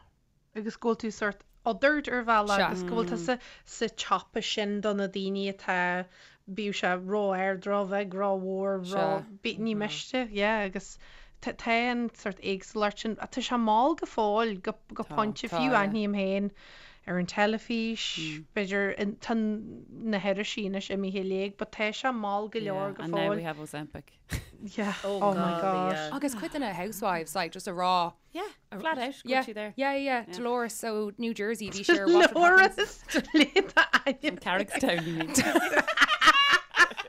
[SPEAKER 5] agus go bhfuil tú sórt othered ar bhealach
[SPEAKER 4] Sea.
[SPEAKER 5] agus go bhfuil tusa sa tsiopa sin do na daoine atá, bíodh sé ró-ard, ró-bheag, ró-mhór, ró,
[SPEAKER 4] Sea.
[SPEAKER 5] bí, ní miste, yeah, agus tá tá an sórt éagsúlacht sin, tá sé mall go fóill, go, go
[SPEAKER 2] Tá,
[SPEAKER 5] pointe,
[SPEAKER 4] tá,
[SPEAKER 5] fiú
[SPEAKER 4] yeah.
[SPEAKER 5] aithním féin ar an teilifís, b'fhéidir, in- tá na hirisí anois imithe i léig, but tá sé mall go leor
[SPEAKER 2] Yeah,
[SPEAKER 5] go
[SPEAKER 2] and now
[SPEAKER 5] fóill.
[SPEAKER 2] we have Ozempic.
[SPEAKER 5] Yeah,
[SPEAKER 3] Oh
[SPEAKER 5] oh my
[SPEAKER 3] God,
[SPEAKER 5] God.
[SPEAKER 3] yeah.
[SPEAKER 4] Agus cuid de na housewives, like, just a rá,
[SPEAKER 2] Yeah, flat out, go
[SPEAKER 4] Yeah,
[SPEAKER 2] sí there.
[SPEAKER 4] yeah, yeah. Dolores ó New Jersey, bhí sí ar Watch What Happens.
[SPEAKER 5] Dolores le d'ainm.
[SPEAKER 2] Carrickstown, you mean.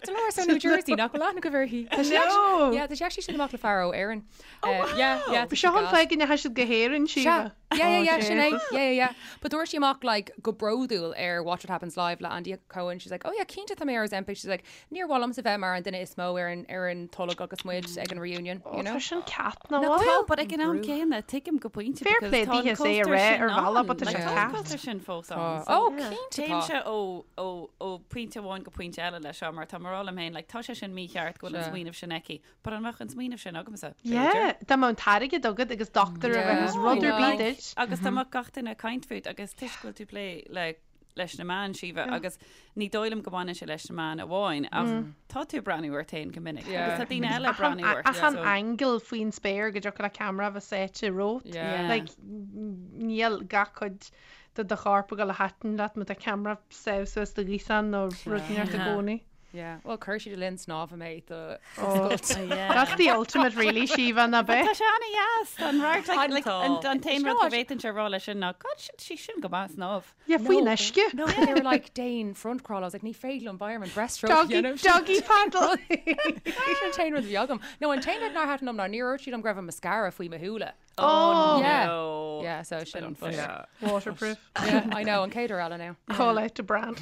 [SPEAKER 4] Dolores ó New Jersey, nach bhfuil aithne agaibh uirthi. Tá sí
[SPEAKER 5] No.
[SPEAKER 4] actually- Yeah, tá sí actually sin amach le fear ó Éirinn. Oh, wow. Yeah, yeah. tá sí
[SPEAKER 5] Seo an
[SPEAKER 4] gas.
[SPEAKER 5] fáth go ndeachaigh siad go hÉirinn,
[SPEAKER 4] Sea.
[SPEAKER 5] Síomha.
[SPEAKER 4] Yeah, yeah, yeah,
[SPEAKER 5] Oh,
[SPEAKER 4] sin é.
[SPEAKER 5] Jesus.
[SPEAKER 4] Yeah, yeah, yeah. But dúirt sí amach like go bródúil ar Watch What Happens Live le Andy Cohen. She's like, oh yeah, cinnte tá mé ar Ozempic. She's like, níor mhaith liomsa bheith mar an duine is mó ar an ar an tolg agus muid ag an reunion, you know?
[SPEAKER 5] Tá sin cat na
[SPEAKER 2] No, tá,
[SPEAKER 5] bhfuil.
[SPEAKER 2] but ag an am céanna, tuigim go pointe
[SPEAKER 5] Fair
[SPEAKER 2] because
[SPEAKER 5] play
[SPEAKER 2] tá an
[SPEAKER 5] daoithe é a
[SPEAKER 2] cultúr
[SPEAKER 5] rá
[SPEAKER 2] sin
[SPEAKER 5] ar bhealach,
[SPEAKER 2] ann.
[SPEAKER 5] but tá
[SPEAKER 2] Like,
[SPEAKER 5] sé
[SPEAKER 2] tá an
[SPEAKER 5] cat.
[SPEAKER 2] cultúr sin fós ann. So
[SPEAKER 4] Oh, cinnte tá.
[SPEAKER 2] Téimse ó ó ó pointe amháin go pointe eile leis seo mar tá mé ag rá liom féin, like, tá sé sin mícheart go bhfuil an
[SPEAKER 4] Sea.
[SPEAKER 2] smaoineamh sin aici, but an mbeadh an smaoineamh sin agamsa?
[SPEAKER 5] Yeah,
[SPEAKER 2] B'fhéidir.
[SPEAKER 5] dá mbeadh an t-airgead agat agus dochtúir a bheith
[SPEAKER 4] Yeah.
[SPEAKER 5] agus rud ar
[SPEAKER 4] I
[SPEAKER 5] bith
[SPEAKER 4] know.
[SPEAKER 5] duit.
[SPEAKER 2] Agus dá mbeadh gach duine ag caint fút agus toisc go bhfuil tú ag plé le leis na meáin, Síomha, agus ní dóigh liom go mbaineann sé leis na meáin amháin ach tá tú ag breathnú ort féin go minic
[SPEAKER 4] Yeah.
[SPEAKER 2] agus tá daoine eile ag breathnú ort.
[SPEAKER 5] Achan
[SPEAKER 2] so-
[SPEAKER 5] angle faoin spéir go dtiocfadh le ceamara a bheith sáite romhat.
[SPEAKER 4] Yeah.
[SPEAKER 5] Like, níl gach cuid de do chorp ag dul a thaitin leat má tá ceamara sáite suas do ghaosán nó rud inteacht i gcónaí.
[SPEAKER 4] Yeah. Well, chuir siad le linn snámha mé do
[SPEAKER 5] Oh.
[SPEAKER 2] Yeah.
[SPEAKER 5] That's the ultimate really, Síomha, ná
[SPEAKER 2] But
[SPEAKER 5] bith.
[SPEAKER 2] Tá sé an-deas an radharc, like, like,
[SPEAKER 3] Tá.
[SPEAKER 2] an an t-aon rud go
[SPEAKER 4] Sure.
[SPEAKER 2] bhféadfainnse a rá leis sin ná God sin sí sin go maith snámh.
[SPEAKER 5] Yeah, faoin uisce.
[SPEAKER 4] No, but they were like, Déan front crawl. I was like, ní féidir liom beidh orm an breaststroke.
[SPEAKER 5] Doggy,
[SPEAKER 4] you know?
[SPEAKER 5] doggy paddle.
[SPEAKER 4] Sin an t-aon rud a bhí agam. No, an t-aon rud nár thaitin liom ná níor dhúirt siad liom go raibh an mascara faoi mo shúile.
[SPEAKER 5] Oh,
[SPEAKER 4] Yeah.
[SPEAKER 3] No.
[SPEAKER 4] Yeah, so sin
[SPEAKER 2] unfair.
[SPEAKER 4] yeah.
[SPEAKER 5] Waterproof.
[SPEAKER 4] yeah, I know, an chéad uair eile now.
[SPEAKER 5] Call out to brand.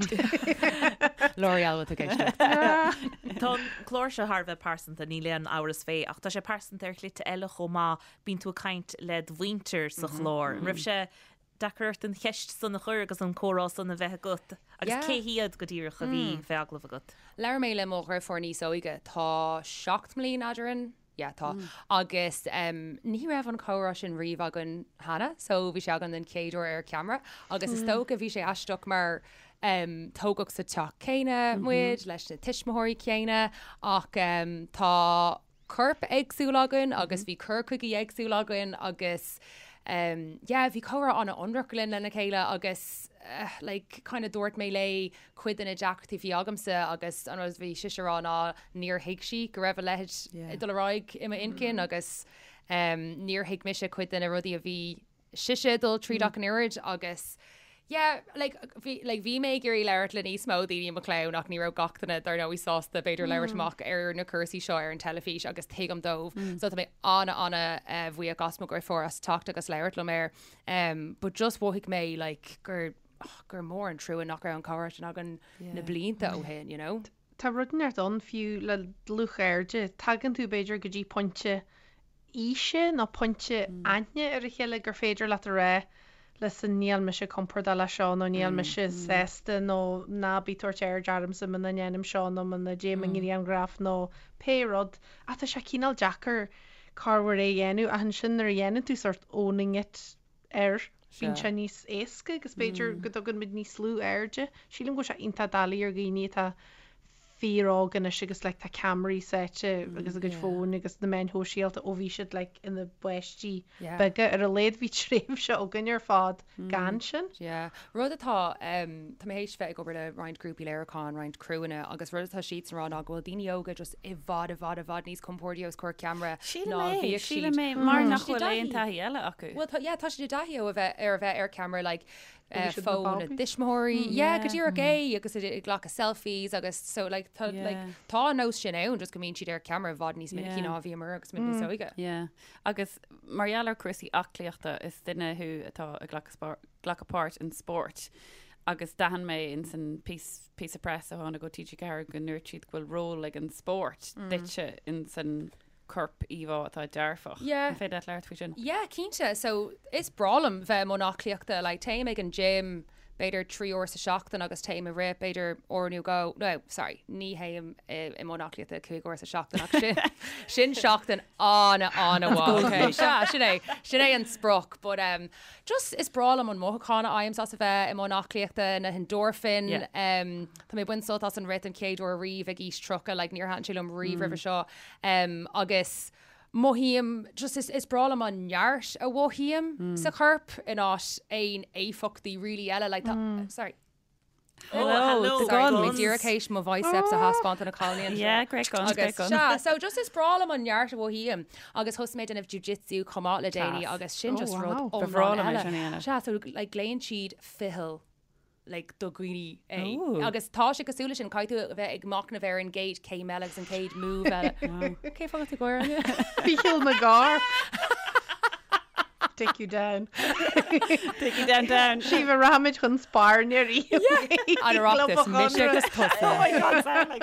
[SPEAKER 4] L'Oreal with éisteacht.
[SPEAKER 3] Tá an clár seo thar a bheith pearsanta, níl aon amhras fé, ach tá sé pearsanta ar shlite eile chomh maith, bíonn tú ag caint le do mhuintir sa chlár. An raibh sé deacair ort an cheist san a chur agus an comhrá san a bheith agat? Agus
[SPEAKER 4] Yeah.
[SPEAKER 3] cé hiad go díreach a bhí fé agallamh agat?
[SPEAKER 4] Labhair mé le mo dheirfiúr níos óige, tá 7 mbliain eadrainn. Yeah, tá. Agus ní raibh an comhrá sin riamh againn cheana, so bhí sé againn den chéad uair ar ceamara agus is dócha bhí sé aisteach mar tógadh sa teach céanna muid, leis na tuismitheoirí céanna ach tá corp éagsúil againn agus bhí cur chuige éagsúil againn agus yeah, bhí comhrá an-ionraic linn lena chéile agus like kind of dúirt mé léi cuid de na deacrachtaí a bhí agamsa agus an rud a bhí sise a rá ná níor thuig sí go raibh a leithéid ag dul ar aghaidh i m'intinn agus níor thuig mise cuid de na rudaí a bhí sise ag dul tríd ach an oiread agus yeah like bhí like bhí mé ag iarraidh labhairt le níos mó daoine i mo chlann ach ní raibh gach duine dar ndóigh sásta b'fhéidir labhairt amach ar na cúrsaí seo ar an teilifís agus tuigim dóibh so tá mé ana ana bhuíoch as mo dheirfiúr as teacht agus labhairt liom air but just mhothaigh mé like gur gur mór an trua nach raibh an comhrá sin againn na blianta ó shin, you know.
[SPEAKER 5] Tá rud inteacht ann fiú le dlúthchairde, tagann tú b'fhéidir go dtí pointe aoise nó pointe aithne ar a chéile gur féidir leat a rá listen níl mise compordach leis seo nó níl mise sásta nó ná bí ag tabhairt aird ormsa muna ndéanaim seo nó muna dtéim i ngrianghraf nó pé rud ach tá sé cineál deacair corruair é a dhéanamh ach ansin nuair a dhéanann tú sort owning it air. Bíonn sé níos éasca agus b'fhéidir go dtugann muid níos lú airde. Sílim go bhfuil sé iontach doiligh ar dhaoine atá fíor-óg anois agus like tá ceamaraí sáite agus a gcuid fóin agus na meáin shóisialta ó bhí siad like ina bpáistí beaga. Ar a laghad bhí tréimhse againn ar fad gan sin.
[SPEAKER 4] Yeah. Rud atá, tá mé théis bheith ag obair le roinnt grúpaí léiriúcháin, roinnt criúanna agus rud atá siadsan a rá ná go bhfuil daoine óga just i bhfad, i bhfad, i bhfad níos compórdaí os comhair ceamara
[SPEAKER 2] Sílim ná é, bhíodh siad. sílim é, mar nach bhfuil aon taithí eile acu.
[SPEAKER 4] Bhuel, tá, yeah, tá siad i dtaithí ó a bheith, ar a bheith ar ceamara, like, eh, siad na fón na babies. dtuismitheoirí, yeah, go díreach é, agus ag ag glacadh selfies agus so, like, tá, like, Yeah. tá an nós sin ann, just go mbíonn siad ar ceamara i bhfad níos minicí Yeah. ná a bhíomar agus muid níos óige.
[SPEAKER 2] Yeah. Agus mar gheall ar cúrsaí aclaíochta, is duine thú atá ag glacadh glacadh páirt in spórt agus d'aithin mé ins an píosa press a tháinig ó TG4 go ndúirt siad go bhfuil ról ag an spórt duitse ins an corp íomhá atá dearfach.
[SPEAKER 4] Yeah.
[SPEAKER 2] An féidir leat labhairt faoi sin?
[SPEAKER 4] Yeah, cinnte. So is breá liom bheith i mbun aclaíochta. Like, téim ag an gym b'fhéidir 3 uair sa seachtain agus téim ag rith b'fhéidir uair nó dhó, no, sorry, ní théim i mbun aclaíochta 5 uair sa seachtain ach sin, sin seachtain an-an-mhaith, okay? Sea, sin é, sin é an sprioc, but um, just is breá liom an mothúchán a fhaighim as a bheith i mbun aclaíochta, na hendorphin, yeah. um, tá mé ag baint sult as an rith den chéad uair riamh ag aois 30, like, níor thaitin sé liom riamh roimhe seo, um, agus mothaím, just is, is breá liom an neart a mhothaím sa chorp in áit aon éifeachtaí really eile, like, tá, sorry.
[SPEAKER 2] Hello, hello,
[SPEAKER 4] the Sorry, guns. mé díreach théis mo biceps a thaispeáint do na cailíní anseo.
[SPEAKER 2] Yeah, great guns, great
[SPEAKER 4] Agus
[SPEAKER 2] guns.
[SPEAKER 4] sea, so just is breá liom an neart a mhothaím agus thosaigh mé ag déanamh jiu-jitsu chomh maith le déanaí
[SPEAKER 2] Class.
[SPEAKER 4] agus sin
[SPEAKER 5] Oh,
[SPEAKER 4] just rud
[SPEAKER 5] wow.
[SPEAKER 2] Ba bhreá
[SPEAKER 4] iomlán
[SPEAKER 2] liom é
[SPEAKER 4] eile.
[SPEAKER 2] sin a dhéanamh.
[SPEAKER 4] Sea, so like glaonn siad ficheall like do dhaoine é.
[SPEAKER 2] Ooh.
[SPEAKER 4] Agus tá sé cosúil leis sin, caithfidh tú a bheith ag machnamh ar an gcéad céim eile agus an chéad move eile. Cén fáth a bhfuil tú ag gáire, Áine?
[SPEAKER 5] Ficheall na gcarr. Take you down.
[SPEAKER 2] Take you down, down.
[SPEAKER 5] Síomha rachaimid chun spairne
[SPEAKER 4] riamh. An Oireachtas, mise agus tusa.
[SPEAKER 3] Oh my God, sound like.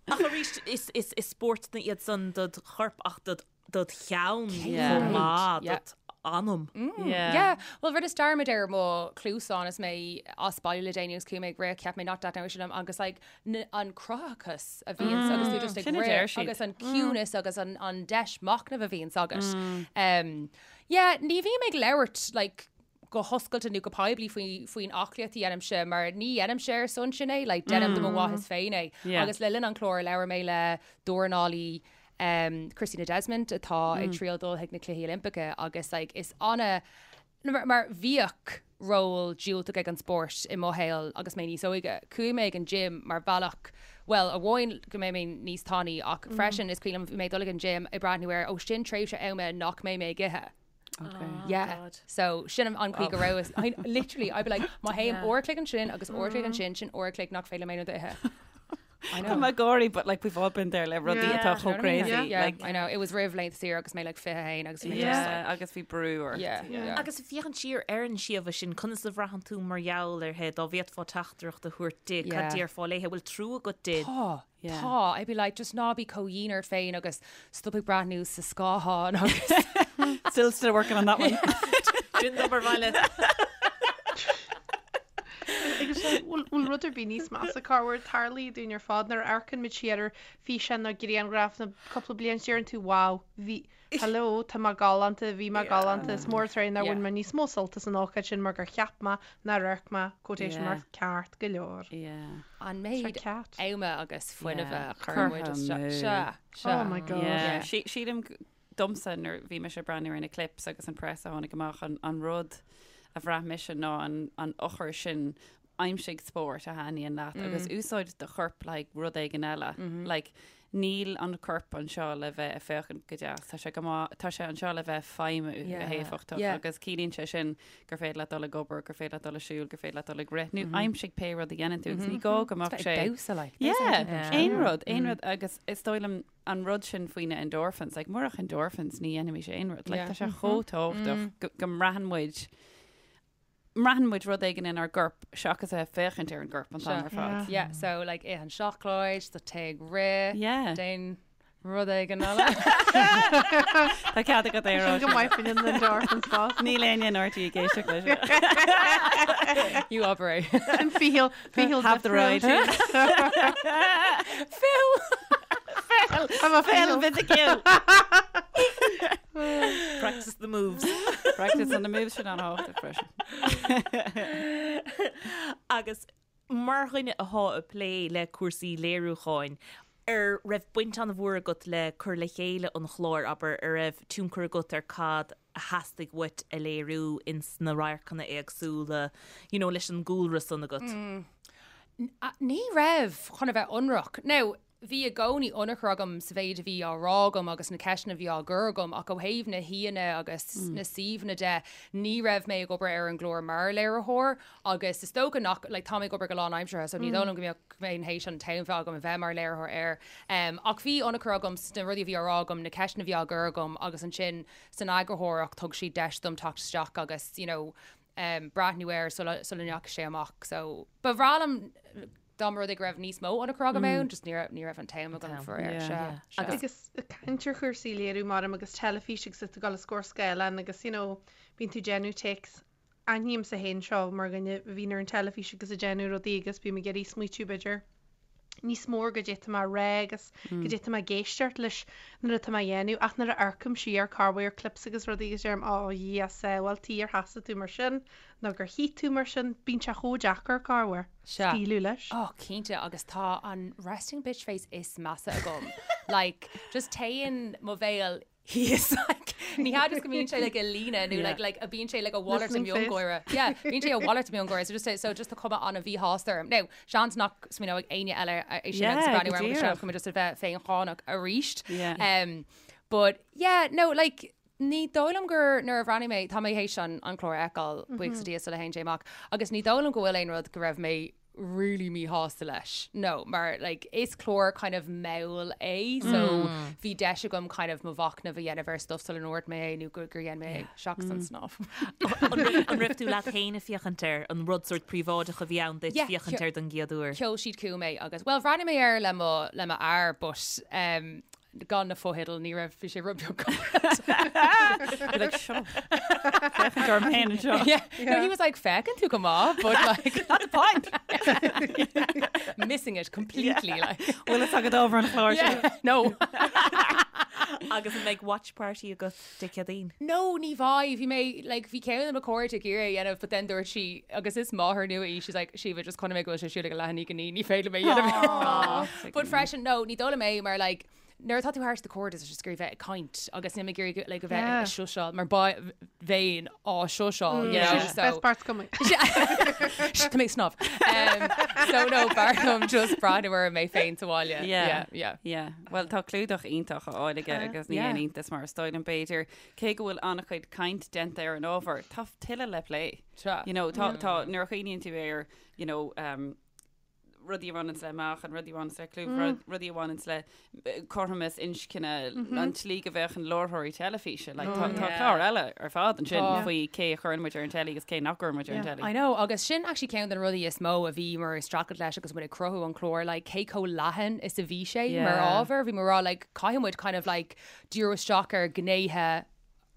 [SPEAKER 3] Ach arís, is, is, is spórtanna iad san dod chorp ach dod, dod cheann chomh maith,
[SPEAKER 4] Yeah.
[SPEAKER 3] dod anam.
[SPEAKER 2] Yeah.
[SPEAKER 4] Yeah, well rinneas dearmad ar mo chluasán is mé as baile le déanaí agus chuaigh mé ag rith, cheap mé nach dtaitneodh sé liom agus like an cruthaitheachas a bhíonns agus tú just ag
[SPEAKER 2] Sin a deir
[SPEAKER 4] rith
[SPEAKER 2] siad.
[SPEAKER 4] agus an ciúnas agus an, an deis machnaimh a bhíonns agat. Um, yeah, ní bhím ag labhairt like, go hoscailte nó go poiblí faoi, faoin aclaíocht a dhéanaimse mar ní dhéanaimse ar son sin é, like, déanaim do mo mhaitheas féin é.
[SPEAKER 2] Yeah.
[SPEAKER 4] Agus le linn an chláir labhair mé le dornálaí um, Christina Desmond atá ag triail dul chuig na Cluichí Oilimpeacha agus like, is ana Mar, mar bhíodh ról diúltach ag an spórt i mo shaol agus mé níos óige. Chuaigh mé ag an gym mar bhealach, bhuel, amháin go mbeidh mé níos tanaí ach freisin is cuimhin liom bhí mé ag dul ag an gym ag breathnú ar, ó sin tréimhse ama nach mbeidh mé ag ithe.
[SPEAKER 2] Okay.
[SPEAKER 4] Yeah.
[SPEAKER 3] God.
[SPEAKER 4] So sin an chaoi go raibh, I, literally, I'd be like, má théim uair a chloig ansin agus uair a chloig ansin, sin uair a chloig nach féidir liom aon rud a ithe. I know.
[SPEAKER 2] Tá mé ag gáirí, but like we've all been there le rudaí
[SPEAKER 5] Yeah.
[SPEAKER 2] atá chomh
[SPEAKER 4] Do you know what I mean?
[SPEAKER 2] crazy.
[SPEAKER 4] Yeah,
[SPEAKER 2] Like,
[SPEAKER 4] I know. It was roimh laethanta saoire agus mé like 21 agus bhí mé just
[SPEAKER 2] yeah,
[SPEAKER 4] like,
[SPEAKER 2] agus bhí brú ort.
[SPEAKER 4] yeah, yeah.
[SPEAKER 3] Agus ag féachaint siar ar an Síomha sin, conas a bhraitheann tú mar gheall uirthi, dá bhféadfá teachtaireacht a thabhairt di, cad
[SPEAKER 4] Yeah.
[SPEAKER 3] déarfá léi, bhfuil trua agat di?
[SPEAKER 4] Tá,
[SPEAKER 2] Yeah.
[SPEAKER 4] tá. I'd be like, just ná bí chomh dhian ort féin agus stop ag breathnú sa scáthán agus
[SPEAKER 2] Still, still working on that one.
[SPEAKER 3] Sin d'obair bhaile.
[SPEAKER 5] Agus Agus bhfuil rud ar bith níos measa corruair tarlaíonn dúinn ar fad nuair a amharcann muid siar ar físeán nó grianghraf nó cúpla bliain siar deireann tú wow, bhí, hello, tá mé galánta, bhí mé galánta, is mór an truaighe nár bhain mé níos mó sult as an ócáid sin mar gur cheap mé nár amharc mé quotation marks ceart go leor.
[SPEAKER 4] An méid ama agus fuinnimh a chuir muid isteach. Sea,
[SPEAKER 5] sea. Oh my God.
[SPEAKER 2] Sílim domsa nuair bhí mise ag breathnú ar na clips agus an press a tháinig amach an, an rud a bhraith mise ná an, an eochair sin aimsigh spórt a thaitníonn leat mm. agus úsáid do chorp le like, rud éigin eile. Mm -hmm. like, níl an corp anseo le bheith ag féachaint go deas Tá sé tá sé anseo le bheith feidhmiú yeah. go héifeachtach yeah. agus ciallaíonn sé sin gur féidir leat dul ag obair, gur féidir leat dul ag siúl, gur féidir leat dul ag rith, nó mm -hmm. aimsigh pé rud a dhéanann tú agus mm -hmm. ní gá go mbeadh sé
[SPEAKER 4] damhsa like.
[SPEAKER 2] Yeah, aon rud, aon rud agus is dóigh liom an rud sin faoi na endorphins, like murach endorphins ní dhéanfaimis aon rud, like, tá sé chomh tábhachtach go, go mbraitheann muid mbraitheann muid rud éigin inár gcorp seachas a bheith féachaint ar an gcorp an t-am ar fad.
[SPEAKER 4] Yeah, so like ith an seacláid, tá téigh ag rith,
[SPEAKER 2] Yeah.
[SPEAKER 4] déan rud éigin eile.
[SPEAKER 2] Tá cead agat é a rá
[SPEAKER 5] Sin go maith faoin endorphins fás.
[SPEAKER 2] Níl éinne in RTÉ ag éisteacht leis.
[SPEAKER 4] You operate.
[SPEAKER 5] Sin ficheall, ficheall
[SPEAKER 2] Have the right.
[SPEAKER 4] Phil!
[SPEAKER 5] I'm a
[SPEAKER 2] Phil
[SPEAKER 5] ficheall.
[SPEAKER 2] Physical.
[SPEAKER 3] Practice the moves.
[SPEAKER 2] Practice on the moves sin an-tábhachtach freisin.
[SPEAKER 3] Agus mar dhuine athá ag plé le cúrsaí léiriúcháin, ar raibh baint an-mhór agat le cur le chéile an chláir, abair, ar raibh tionchar agat ar cad a theastaigh uait a léiriú ins na radharcanna éagsúla, you know, leis an gcúlra san agat?
[SPEAKER 4] Ní raibh, chun a bheith ionraic. Now, bhí i gcónaí ionchur agam sa mhéid a bhí á rá agam agus na ceisteanna a bhí á gcur agam ach ó thaobh na haíonna agus na suíomhanna de, ní raibh mé ag obair ar an gclár mar léiritheoir agus is dócha nach, like, tá mé ag obair go lánaimseartha so ní dóigh liom go mbeadh, go mbeinn théis an t-am bheith agam a bheith mar léiritheoir air. Ach bhí ionchur agam sna rudaí a bhí á rá agam, na ceisteanna a bhí á gcur agam agus ansin san eagarthóireacht thug siad deis dom teacht isteach agus, you know, breathnú air sula, sula ndeachaigh sé amach. So ba bhreá liom dá mba rud é go raibh níos mó ionchur agam ann, just ní raibh, ní raibh an t-am agam faraor. Sea,
[SPEAKER 5] sea. Agus ag caint ar chúrsaí léiriú maram agus teilifís agus tú ag dul os comhair scáileáin agus, you know, bíonn tú ag déanamh takes Aithnímse féin seo mar dhuine a bhíonn ar an teilifís agus ag déanamh rudaí agus bím ag iarraidh smaoitiú b'fhéidir níos mó ar goidé atá mé a rá agus goidé atá mé ag éisteacht leis nuair atá mé a dhéanamh ach nuair a amharcaim siar corruair ar clips agus rudaí agus deirim oh a Dhia sábháilte ar sheasaigh tú mar sin nó gur shuigh tú mar sin bíonn sé chomh deacair corruair scaoileadh leis.
[SPEAKER 4] Oh cinnte agus tá an resting bitch face is measa agam like just téann mo bhéal thíos like ní hea just go mbíonn sé like i líne nó like like a bíonn sé like a mhalairt de mhiongháire yeah bíonn sé a mhalairt de mhiongháire so just so just tá cuma an-mhíshásta orm now seans nach smaoineoidh éinne eile é sin agus breathnú orm agus seans go mbeidh just a bheith féincháineach arís um but yeah no like ní dóigh liom gur nuair a bhreathnaigh mé tá mé théis an an clár a fheiceáil buíochas le Dia sula théann sé amach agus ní dóigh liom go bhfuil aon rud go raibh mé really míshásta leis. No, mar like is clár kind of mall é so bhí deis agam kind of mo mhachnamh a dhéanamh ar stuff sula ndúirt mé é nó gur gur dhein mé é seachas an snámh.
[SPEAKER 3] An raibh tú leat féin ag féachaint air, an rud sórt príobháideach a bhí ann duit féachaint air don gcéad uair?
[SPEAKER 4] Sheol siad chugam é agus, well bhreathnaigh mé air le mo le mo fhear but um, Gan na fotheidil, ní raibh, bhí sé rud beag
[SPEAKER 2] Be like, shut up. Féachaint orm féin anseo.
[SPEAKER 4] Yeah. No, he was like, féachann tú go maith, but like,
[SPEAKER 2] Not the point.
[SPEAKER 4] missing it completely. Like.
[SPEAKER 2] Bhfuil fhios agat ábhar an chláir seo?
[SPEAKER 4] Yeah. No.
[SPEAKER 3] Agus an mbeidh watch party agat Dé Céadaoin?
[SPEAKER 4] No, ní bheidh. Bhí mé, like, bhí ceann de mo chairde ag iarraidh a dhéanamh, but then dúirt sí, agus is máthair nua í, she's like, Síomha, just chonaic mé go bhfuil sé ar siúl ag a leath i ndiaidh a 9, ní féidir liom é a dhéanamh. But freisin, no, ní dóigh liom é mar, like, nuair atá tú thart do chairde tá sé just ag iarraidh bheith ag caint agus níl mé ag iarraidh like, a bheith ag shush-áil mar bheinn á shush-áil, you know, so.
[SPEAKER 5] Best part's coming.
[SPEAKER 4] Tá mé ag snámh. Um, so no, b'fhearr liom just breathnú orm mé féin sa bhaile.
[SPEAKER 2] Yeah.
[SPEAKER 4] Yeah, yeah.
[SPEAKER 2] Yeah. Bhuel, tá clúdach iontach á fháil aige agus ní haon iontas mar is dóigh liom b'fhéidir, cé go bhfuil an-chuid caint déanta ar an ábhar, tá tuilleadh le plé.
[SPEAKER 4] Sea.
[SPEAKER 2] You know, tá, tá, nuair a chuimhníonn tú ar, you know, um, rudaí a bhaineanns le meáchan, rudaí a bhaineanns le clú, rudaí a bhaineanns le cothromas inscne, an tslí go bhféachann láithreoirí teilifíse. Like, tá, tá clár eile ar fad ansin faoi cé a chuireann muid ar an teilí agus cé nach gcuireann muid ar an teilí.
[SPEAKER 4] I know, agus sin actually ceann de na rudaí is mó a bhíomar ag streachailt leis agus muid ag cruthú an chláir, like, cé chomh leathan is a bhí sé mar ábhar. Bhí muid ag rá, like, caithfidh muid kind of like díriú isteach ar ghnéithe.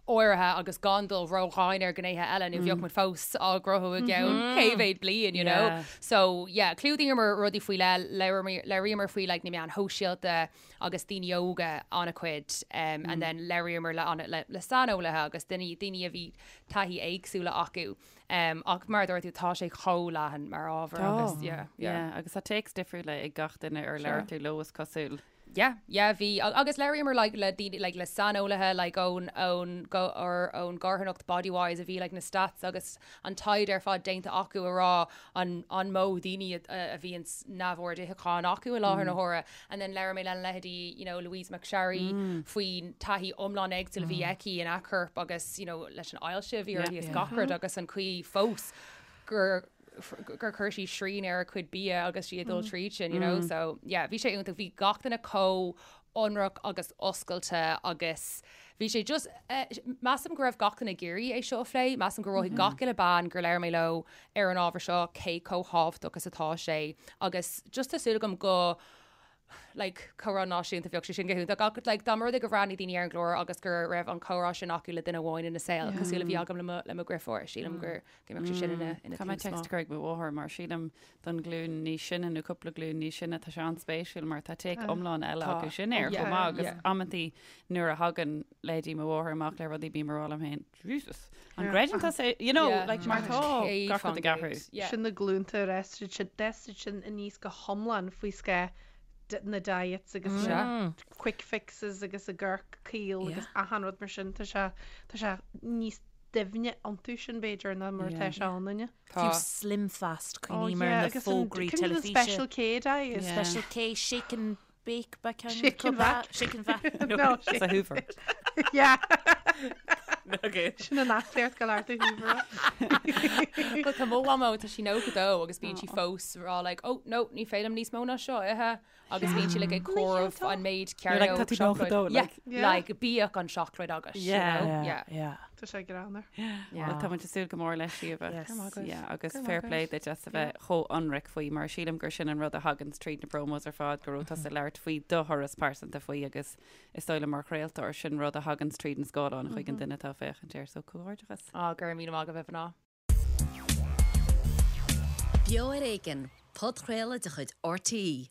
[SPEAKER 4] áirithe agus gan dul ródhomhain ar ghnéithe eile nó bheadh muid fós á gcruthú i gceann cé mhéad bliain, you know. So yeah, chlúdaíomar rudaí faoi leith, labhraíomar faoi like na meáin shóisialta agus daoine óga an-chuid um, and then labhraíomar le, an, le, le saineolaithe agus daoine, daoine a bhí taithí éagsúla acu. Um, ach mar a dúirt tú, tá sé chomh leathan mar ábhar agus yeah, yeah.
[SPEAKER 2] Yeah, agus tá takes difriúla ag gach duine ar labhair tú leo is cosúil.
[SPEAKER 4] Yeah, yeah, bhí, agus labhraíomar like le daoine, like le saineolaithe like ón, ón, go, or ón gcarthanacht Bodywhys a bhí like na stats agus an taighde ar fad déanta acu a rá an, an mó daoine a, a bhíonn neamhord itheacháin acu i láthair na huaire. And then labhair mé le leithéidí, you know, Louise McSharry faoin taithí iomlán éagsúil a bhí aici ina corp agus, you know, leis an ailse a bhí uirthi is gach rud agus an chaoi fós gur gur chuir sí srian ar a cuid bia agus sí ag dul tríd sin, you know, so yeah, bhí sé iontach, bhí gach duine chomh ionraic agus oscailte agus bhí sé just, eh, measaim go raibh gach duine ag iarraidh é seo a phlé, measaim gur mhothaigh gach uile bean gur labhair mé leo ar an ábhar seo cé chomh thábhachtach is atá sé agus just tá súil agam go like, comhrá náisiúnta, bheadh sé sin go hiontach ach like, dá mba rud é gur bhreathnaigh daoine ar an gclár agus go raibh an comhrá sin acu le duine amháin ina saol, cosúil le bhí agam le mo, le mo dheirfiúr, sílim gur go mbeadh sé sin ina, ina
[SPEAKER 2] Tá mé
[SPEAKER 4] tús
[SPEAKER 2] text
[SPEAKER 4] maith.
[SPEAKER 2] a chur ag mo mháthair mar sílim don ghlúin níos sine nó cúpla glúin níos sine tá sé an-spéisiúil mar tá take iomlán eile
[SPEAKER 4] Tá.
[SPEAKER 2] acu sin air
[SPEAKER 4] Yeah,
[SPEAKER 2] chomh maith agus
[SPEAKER 4] yeah.
[SPEAKER 2] amantaí nuair a thagann leithéidí mo mháthair amach le rudaí bím ag rá liom féin, Jesus, an gcreideann tusa, you know,
[SPEAKER 4] Yeah.
[SPEAKER 2] like mar tá gach rud ag athrú.
[SPEAKER 4] Yeah.
[SPEAKER 5] Sin na glúnta ar fhás siad sin, d'fhás siad sin aníos go hiomlán faoi scáth na diets agus na quick fixes agus an corp caol agus achan rud mar sin, tá sé, tá sé níos doimhne iontu sin b'fhéidir ná mar atá sé ionainne.
[SPEAKER 3] Fiú Slim Fast, cuimhním ar na fógraí teilifíse.
[SPEAKER 5] Special K diet.
[SPEAKER 3] Special K, shake and bake ba ceann
[SPEAKER 5] Shake and vac.
[SPEAKER 3] Shake and vac.
[SPEAKER 5] No,
[SPEAKER 2] It's a Hoover.
[SPEAKER 5] Yeah.
[SPEAKER 3] Okay.
[SPEAKER 5] Sin an aclaíocht go leor do Hoover.
[SPEAKER 4] Well, tá mo mhamó tá sí 92 agus bíonn sí fós rá like, oh no, ní féidir liom níos mó ná seo a ithe agus bíonn sí like ag comhaireamh an méid
[SPEAKER 2] You're like,
[SPEAKER 4] cearnóg
[SPEAKER 2] tá tú 92,
[SPEAKER 4] Yeah,
[SPEAKER 2] like.
[SPEAKER 5] Yeah.
[SPEAKER 4] like bíodh an seacláid agat. you
[SPEAKER 2] Yeah.
[SPEAKER 4] know?
[SPEAKER 3] Yeah.
[SPEAKER 4] Yeah.
[SPEAKER 3] Yeah.
[SPEAKER 5] Tá sé greannmhar.
[SPEAKER 2] Well, tá muid ag súil go mór leis Síomha.
[SPEAKER 3] Yes.
[SPEAKER 4] Go maith agat.
[SPEAKER 2] Yeah, agus
[SPEAKER 4] Go maith
[SPEAKER 2] fair play
[SPEAKER 4] agat.
[SPEAKER 2] duit as a bheith chomh ionraic faoi mar sílim gur sin an rud a thagann tríd na promos ar fad go raibh tusa ag labhairt faoi do thuras pearsanta faoi agus is dóigh liom mar chraoltóir sin rud a thagann tríd an scáileán chuig an duine atá ag féachaint air so comhghairdeachas.
[SPEAKER 4] Á, go raibh míle maith agaibh a mhná.
[SPEAKER 1] Beo ar Éigean, podchraoladh de chuid RTÉ.